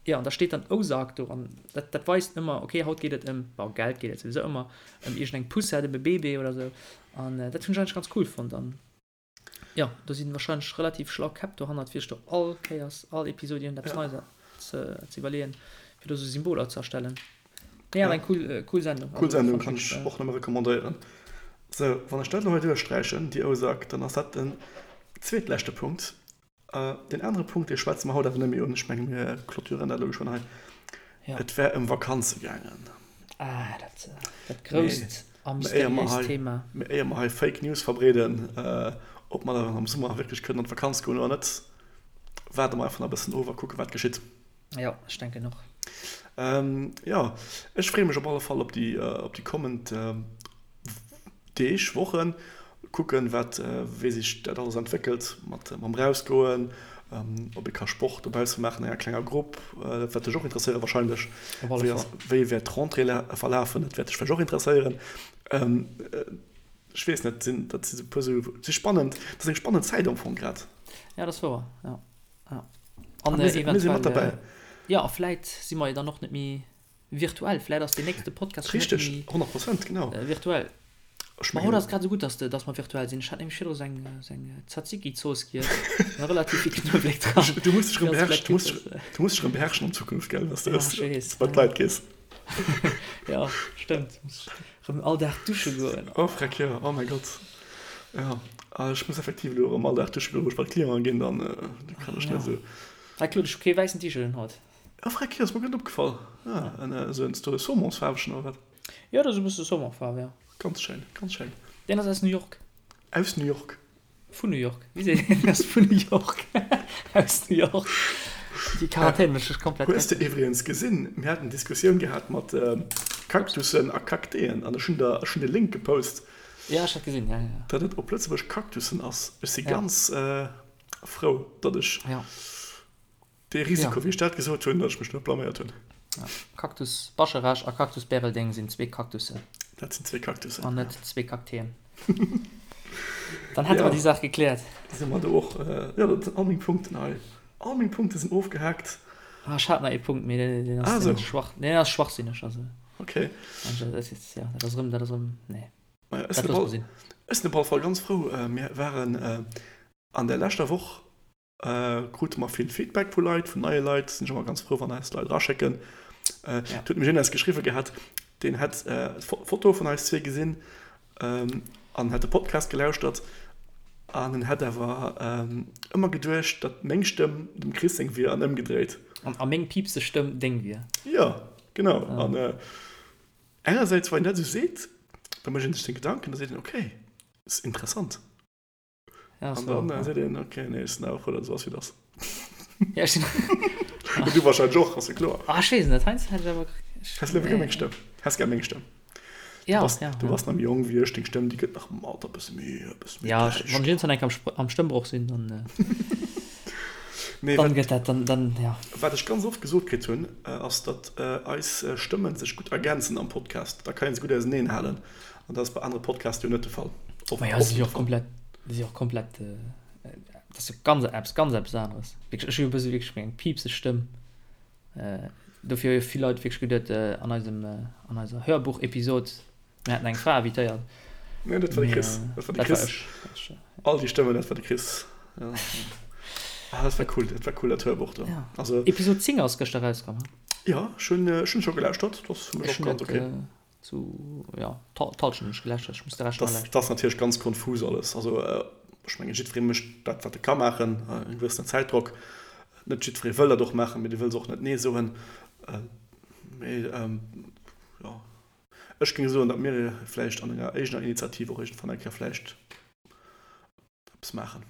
Jo, an da steet dann Ozark do an dat, dat weist ëmmer, okay, haut geet et ëm, bon, Geld geet et souwisou ëmmer, ëm iergendeng Poussette, ëm e Bébé oder sou. An dat hunn ech eigentlech ganz cool fonnt. An jo, do si warscheinlech relativ schlau Käpp dohannert, fir sech do all Kéiers, all Episod iergendeppes Ja. Neies ze, ze iwwerleeën, fir do sou Symboler ze erstellen. Nee, awer eng cool, cool Sendung. Cool Also Sendung, fand kann ech ech wierklech. och nëmme recommandéieren. Sou, wann ech dat elo hei duerchsträichen, déi Ozark, dann ass dat den zweetleschte Punkt. Deen anere Punkt, dee schwätze mer haut awer net méi un. Ech menge mir clôturen dat elo geschwënn hei. Ja. Et wär ëm Vakanze gaangen. Ah, dat, dat grousst a Mee éier mer mysteriéist hei, Thema. mee éier mer hei Fake News verbreeden, ob mer dann am Summer wierklech kënnen an d'Vakanz goen oder net, waarde mer einfach nach e bëssen of a kucke wat geschitt. Jo, ech denken och. Jo, ech freeë mech op alle Fall op déi, op déi kommend Deeg, Wochen, kucken, wat, wéi sech dat alles entwéckelt mat, mam Rausgoen, ob ee ka Sport dobausse maachen an enger klenger Grupp, dat wäert dech och interesséieren wahrscheinlech. Op alle Wéi ass, Fall. wéi wäert d'Rentrée verlafen, dat wäert dech vläicht och interesséieren. Ech weess net, sinn, dat si sou e puer sou, si spannend, dat ass eng spannend Zäit am Fong grad. Ja, dat ass wouer, jo. Ja. A An mir si, mir si mat eventuell, derbäi. jo, a vläit si mer jo dann och net méi Virtuell, vläit ass deen nächste Podcast schon net Richteg, méi 100 Prozent, genau. virtuell. Ech Ma haut mengen. ass et grad esou gutt, dass de, dass mer virtuell sinn. Ech hat nämlech virdru sou eng, sou eng Tzatziki-Zooss giess, war relativ vill Knuewelek dran. Du muss dech erëm Déi ass beherrschen, vläit du gutt, muss dass. dech, du muss dech erëm beherrschen an Zukunft, gell, dass de Ja, ech weess, bei ja. d'Leit gees. Ja, stëmmt. Muss erëm all Dag dusche goen. Oh freck, jo, oh mäi Gott. Jo, ah, ech muss effektiv elo erëm all Dag dusche goen, wou ech bei d'Clienten ginn, dann kann ech net Ja. esou. Hei Claude, ech hu kee wäissen T-Shirt un haut. Ah freck, jo, ass mer guer net opgefall. Ah, en esou en esou saumonsfaarwegen oder wat? Jo, dat ass e bësse Saumonfaarw, jo. Ganz schéin, ganz schéin. Deen ass aus New York. Aus New York? Vun New York. Wéi seet een? Deen ass vun New York. Aus New York. Déi Quarantän mécht mech komplett Hues de gëckeg. iwwregens gesinn, mir haten Diskussioun gehat mat Kaktussen a Kakteen an ech hunn der, ech hunn de Link gepost. Ja, ech hat gesinn, ja, ja. Datt et op Lëtzebuerg Kaktussen ass. Ech si Ja. ganz frou, datt ech. Ja. Dee Risiko, Ja. wéi ech dat gesot hunn, datt ech mech net blaméiert hunn. Ja. Cactus Bascharage a Cactus Bäreldeng sinn zwee Cactussen. Dat sinn zwee Cactussen, An ja. net zwee Kakteen. Dann hätte mer Ja. déi Saach gekläert. Da si mer do och. Jo, dat sinn all meng Punkten hei. All meng Punkte sinn ofgehaakt. Ah, ech hat nach ee Punkt, mee deen, deen ass, Ah, deen ass sou. schwach, deen ass schwachsinneg. Also, Okay. dat ass, ja, dat ass erëm, dat ass erëm, nee. Maja, ech Dat sinn op loosse mer all, sinn. ech sinn op alle Fall ganz frou. Mir waren an der leschter Woch Krute mer vill Feedback vu Leit, vun neie Leit. Sinn ech ëmmer ganz frou, wann eis Leit eraschécken. Et huet mech een eis geschriwwe gehat, deen hätt d'Foto vun eis zwee gesinn an hätt de Podcast gelauschtert an en hätt awer ëmmer geduecht, datt meng Stëmm dem Chris seng wier an ëmgedréit. A meng piipseg Stëmm deng wier. Jo, genau. An engersäits, wann een dat esou seet, da mécht een sech seng Gedanken, da seet een, okay, ass interessant. Ja, An so, dann ja. seet een, okay, nee, ech sinn awer frou, datt et esou ass, wéi et ass. Ja, ech sinn. Du wahrscheinlech och, ass jo kloer. Ah, ech weess net, heiansdo hätt ech awer. Häss léiwer gär meng Stëmm? Häss gär meng Stëmm? Du Ja, bass, ja, du ja. bass nach méi jonk wéi ech, deng Stëmm, déi gëtt nach am Alter e bësse méi, e bësse méi Ja, ech, däischter. wann ech iergendwann eng Kéier am Spr-, am Stëmmbroch sinn, dann, Nee, dann wat, gëtt dat, dann, dann, ja. wat ech ganz oft gesot kritt hunn, ass, datt eis Stëmmen sech gutt ergänzen am Podcast. Da kann ee se gutt auseneen halen. An dat ass bei anere Podcaste jo net de Fall. Oft, Maja, si och komplett, si och komplett, dat ass jo ganz eppes, ganz eppes aneres. Wierklech, ech hu jo e bësse wierklech meng piipseg Stëmm. Dofir hu jo vill Leit wierklech geduet, an eisem, an eiser Hörbuch-Episod, mir hätten eng Fra invitéiert. Nee, dat war de Chris. Dat war de Chris. Dat war ech. All déi Stëmmen, dat war de Chris. Ja. Ah, dat war cool, dat war cool, dat Hörbuch do. Ja. Also. Episod 10 ass gëschter erauskomm, he? Ja, ech hunn, ech hunn scho gelauschtert. Dat ass fir mech Ech och hunn ganz dat, okay. Zu, ja, d'Halschent hunn ech geläscht, ech muss de Rescht nach Das, läschen. das ass natierlech ganz konfus alles. Also ech mengen, jiddweree mécht dat, wat e ka maachen, e gewëssenen Zäitdrock. Net jiddweree wëll dat och maachen, mee dee wëll se och net Nee soen. Mee jo, ech géing soen, datt mir vläicht an enger éigener Initiativ och iergendwann eng Kéier vläicht eppes maachen.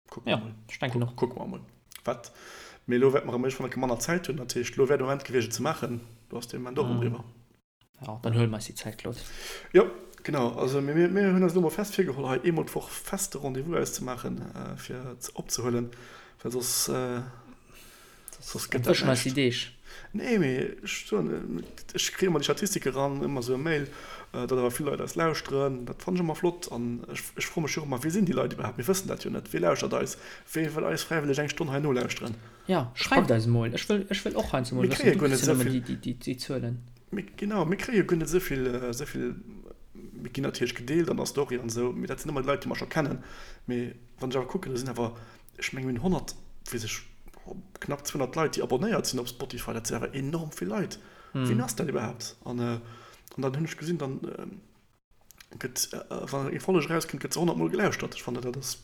Kucke mer Ja, mol. ech denken och. Kucke mer mol. Wat, mee elo wäerte mer erëm iergendwann eng Kéier manner Zäit hunn. Dat heescht, elo wär de Moment gewiescht, et ze maachen. Do ass de Moment och erëm eriwwer. Ja, dann huele mer eis déi Zäit, Claude. Jo, genau. Also mir, mir, mir hunn eis elo mol fest virgeholl, hei eemol d'Woch feste Rendez-vous auszemaachen, fir opzehuelen, well soss. Soss gëtt dat näischt. Deeg. Nee, mee ech soen, ech kréie ëmmer déi Statistike ran, ëmmer esou e Mail, datt awer vill Leit eis lauschteren. Dat fannen ech ëmmer flott an ech, ech froe mech jo och ëmmer, Wie sinn déi Leit iwwerhaapt? Mir wëssen dat jo net. Wie lauschtert eis? Wie wëll eis fräiwëlleg eng Stonn hei nolauschteren? Jo, schreift eis emol. Ech wëll, ech wëll och heiansdo mol wëssen, du kriss jo nëmmen déi, déi, déi Zuelen. Mir, genau, mir kréie jo guer net esou vill, esou vill, mir ginn natierlech gedeelt an der Story an esou, mee dat sinn ëmmer déi Leit, déi mer scho kennen. Mee wann ech awer kucken, do sinn awer Ech mengen mir hunn 100, weess ech, knapp 200 Leit déi abonnéiert sinn op Spotify, dat sinn awer enorm vill Leit. Wien ass dat iwwerhaapt? An dann hunn ech gesinn, dann gëtt, wann eng Folleg erauskënnt, gëtt se 100 mol gelauschtert. Ech fannen dat ass,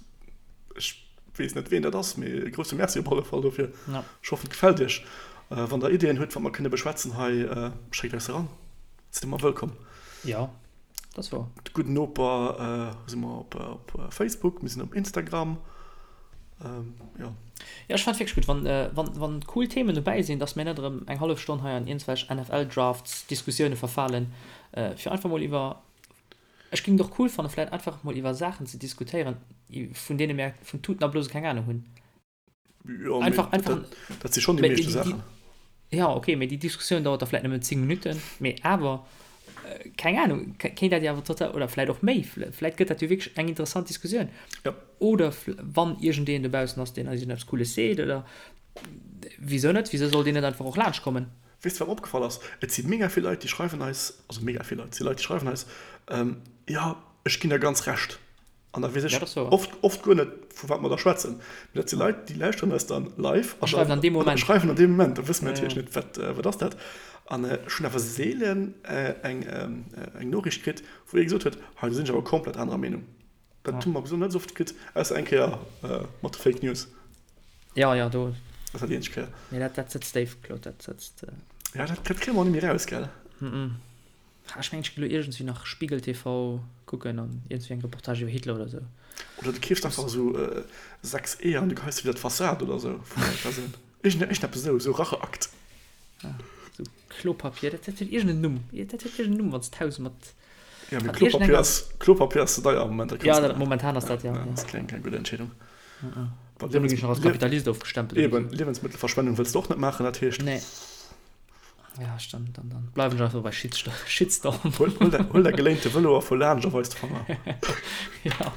ech weess net wien dat ass, mee e grousse Merci op alle Fall dofir. Ech hoffen et gefält iech. Wann der Ideeën hutt wat mer kënne beschwätzen hei, schéckt eis eran, sidd ëmmer wëllkomm. Jo. Dat ass wouer. De gudden Noper si mer op Facebook, mir sinn op Instagram. Jo. Jo, ech fannen et wierklech gutt, wann, wann, wann cool Themen dobäi sinn, dass mir net erëm eng hallef Stonn hei an iergendwelch NFL-Drafts-Diskussioune verfalen, fir einfach mol iwwer, ech géing et och cool fannen, vläicht einfach mol iwwer Saachen ze diskutéieren, vun deene mir vun Tuten a Blose keng Anung hunn. Ja, einfach, einfach, dat, dat si schon déi meeschte Saachen. Ja, okay, mee déi Diskussioun dauert da vläit nëmmen 10 Minutten, mee awer, äh, keng Ahnung, kéint dat jo awer total, oder vläit och méi, vläit gëtt dat jo wierklech eng interessant Diskussioun. Ja. Oder wann iergendeen dobaussen ass, deen eis iergendeppes Cooles seet, oder wisou net, wisou soll deen net einfach och laanscht kommen? Weess de wat mer opgefall ass? Et si mega vill Leit, déi schreiwen eis, also mega vill Leit, et si Leit, déi schreiwen eis, ähm, jo, ech ginn der ganz Recht. An da weess ech oft, oft guer net, vu wat mer da schwätzen. Mee dat si Leit, déi lauschteren eis dann live a schreiwen an deem Moment. Schreiwen an deem Moment. Da wësse mir natierlech net, wat, wat ass dat. An ech hunn awer seelen eng, eng Noriicht kritt, wou ee gesot huet, hei, do sinn ech awer komplett anerer Meenung. Dat hu mer bis elo net esou oft kritt, ausser eng Kéier mat de Fake News. Jo, jo, do. Dat war déi eenzeg Kéier. Mee dat, dat sëtzt déif, Claude, dat sëtzt. Ja, dat, dat kréie mer och net méi eraus, gell? Ech mengen ech ginn elo iergendswéi nach Spiegel TV kucken an iergendswéi eng Reportage iwwer Hitler oder sou. Oder du keefs einfach esou 6 Eeër an du geheis se widder d'Fassad oder sou vun der Persoun. Iergend iergendeppes esou, esou Racheakt. Ah, esou Klopapier, dat dat huet iergend en Numm. Dat huet iergend en Numm, wann s d'Haus mat. Ja, mee Klopapier ass, Klopapier ass ze deier am Moment, dat kanns Ja, momentan ass dat, ja. Ja, ass keng, keng gutt Entscheedung. Dann ginn ech nach als Kapitalist ofgestempelt. Eben, Liewensmëttelverschwendung wëlls de och net maachen, dat heescht. Nee. Ja, dann, dann, dann bleiwen ech einfach bei Shitstorm. Shitstorm. Huel, huel, däi, huel däi geléinte Vëlo a fuer laanscht a weis de Fanger. Ja.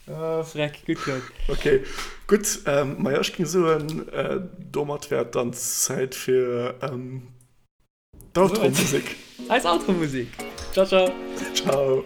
Oh, Freck, gutt, Claude. Okay, gutt. Ähm, maja, ech géing soen, äh, domat wär et dann Zäit fir ähm, d'Outro-Musek. Eis Outro-Musek. Ciao, ciao. Ciao.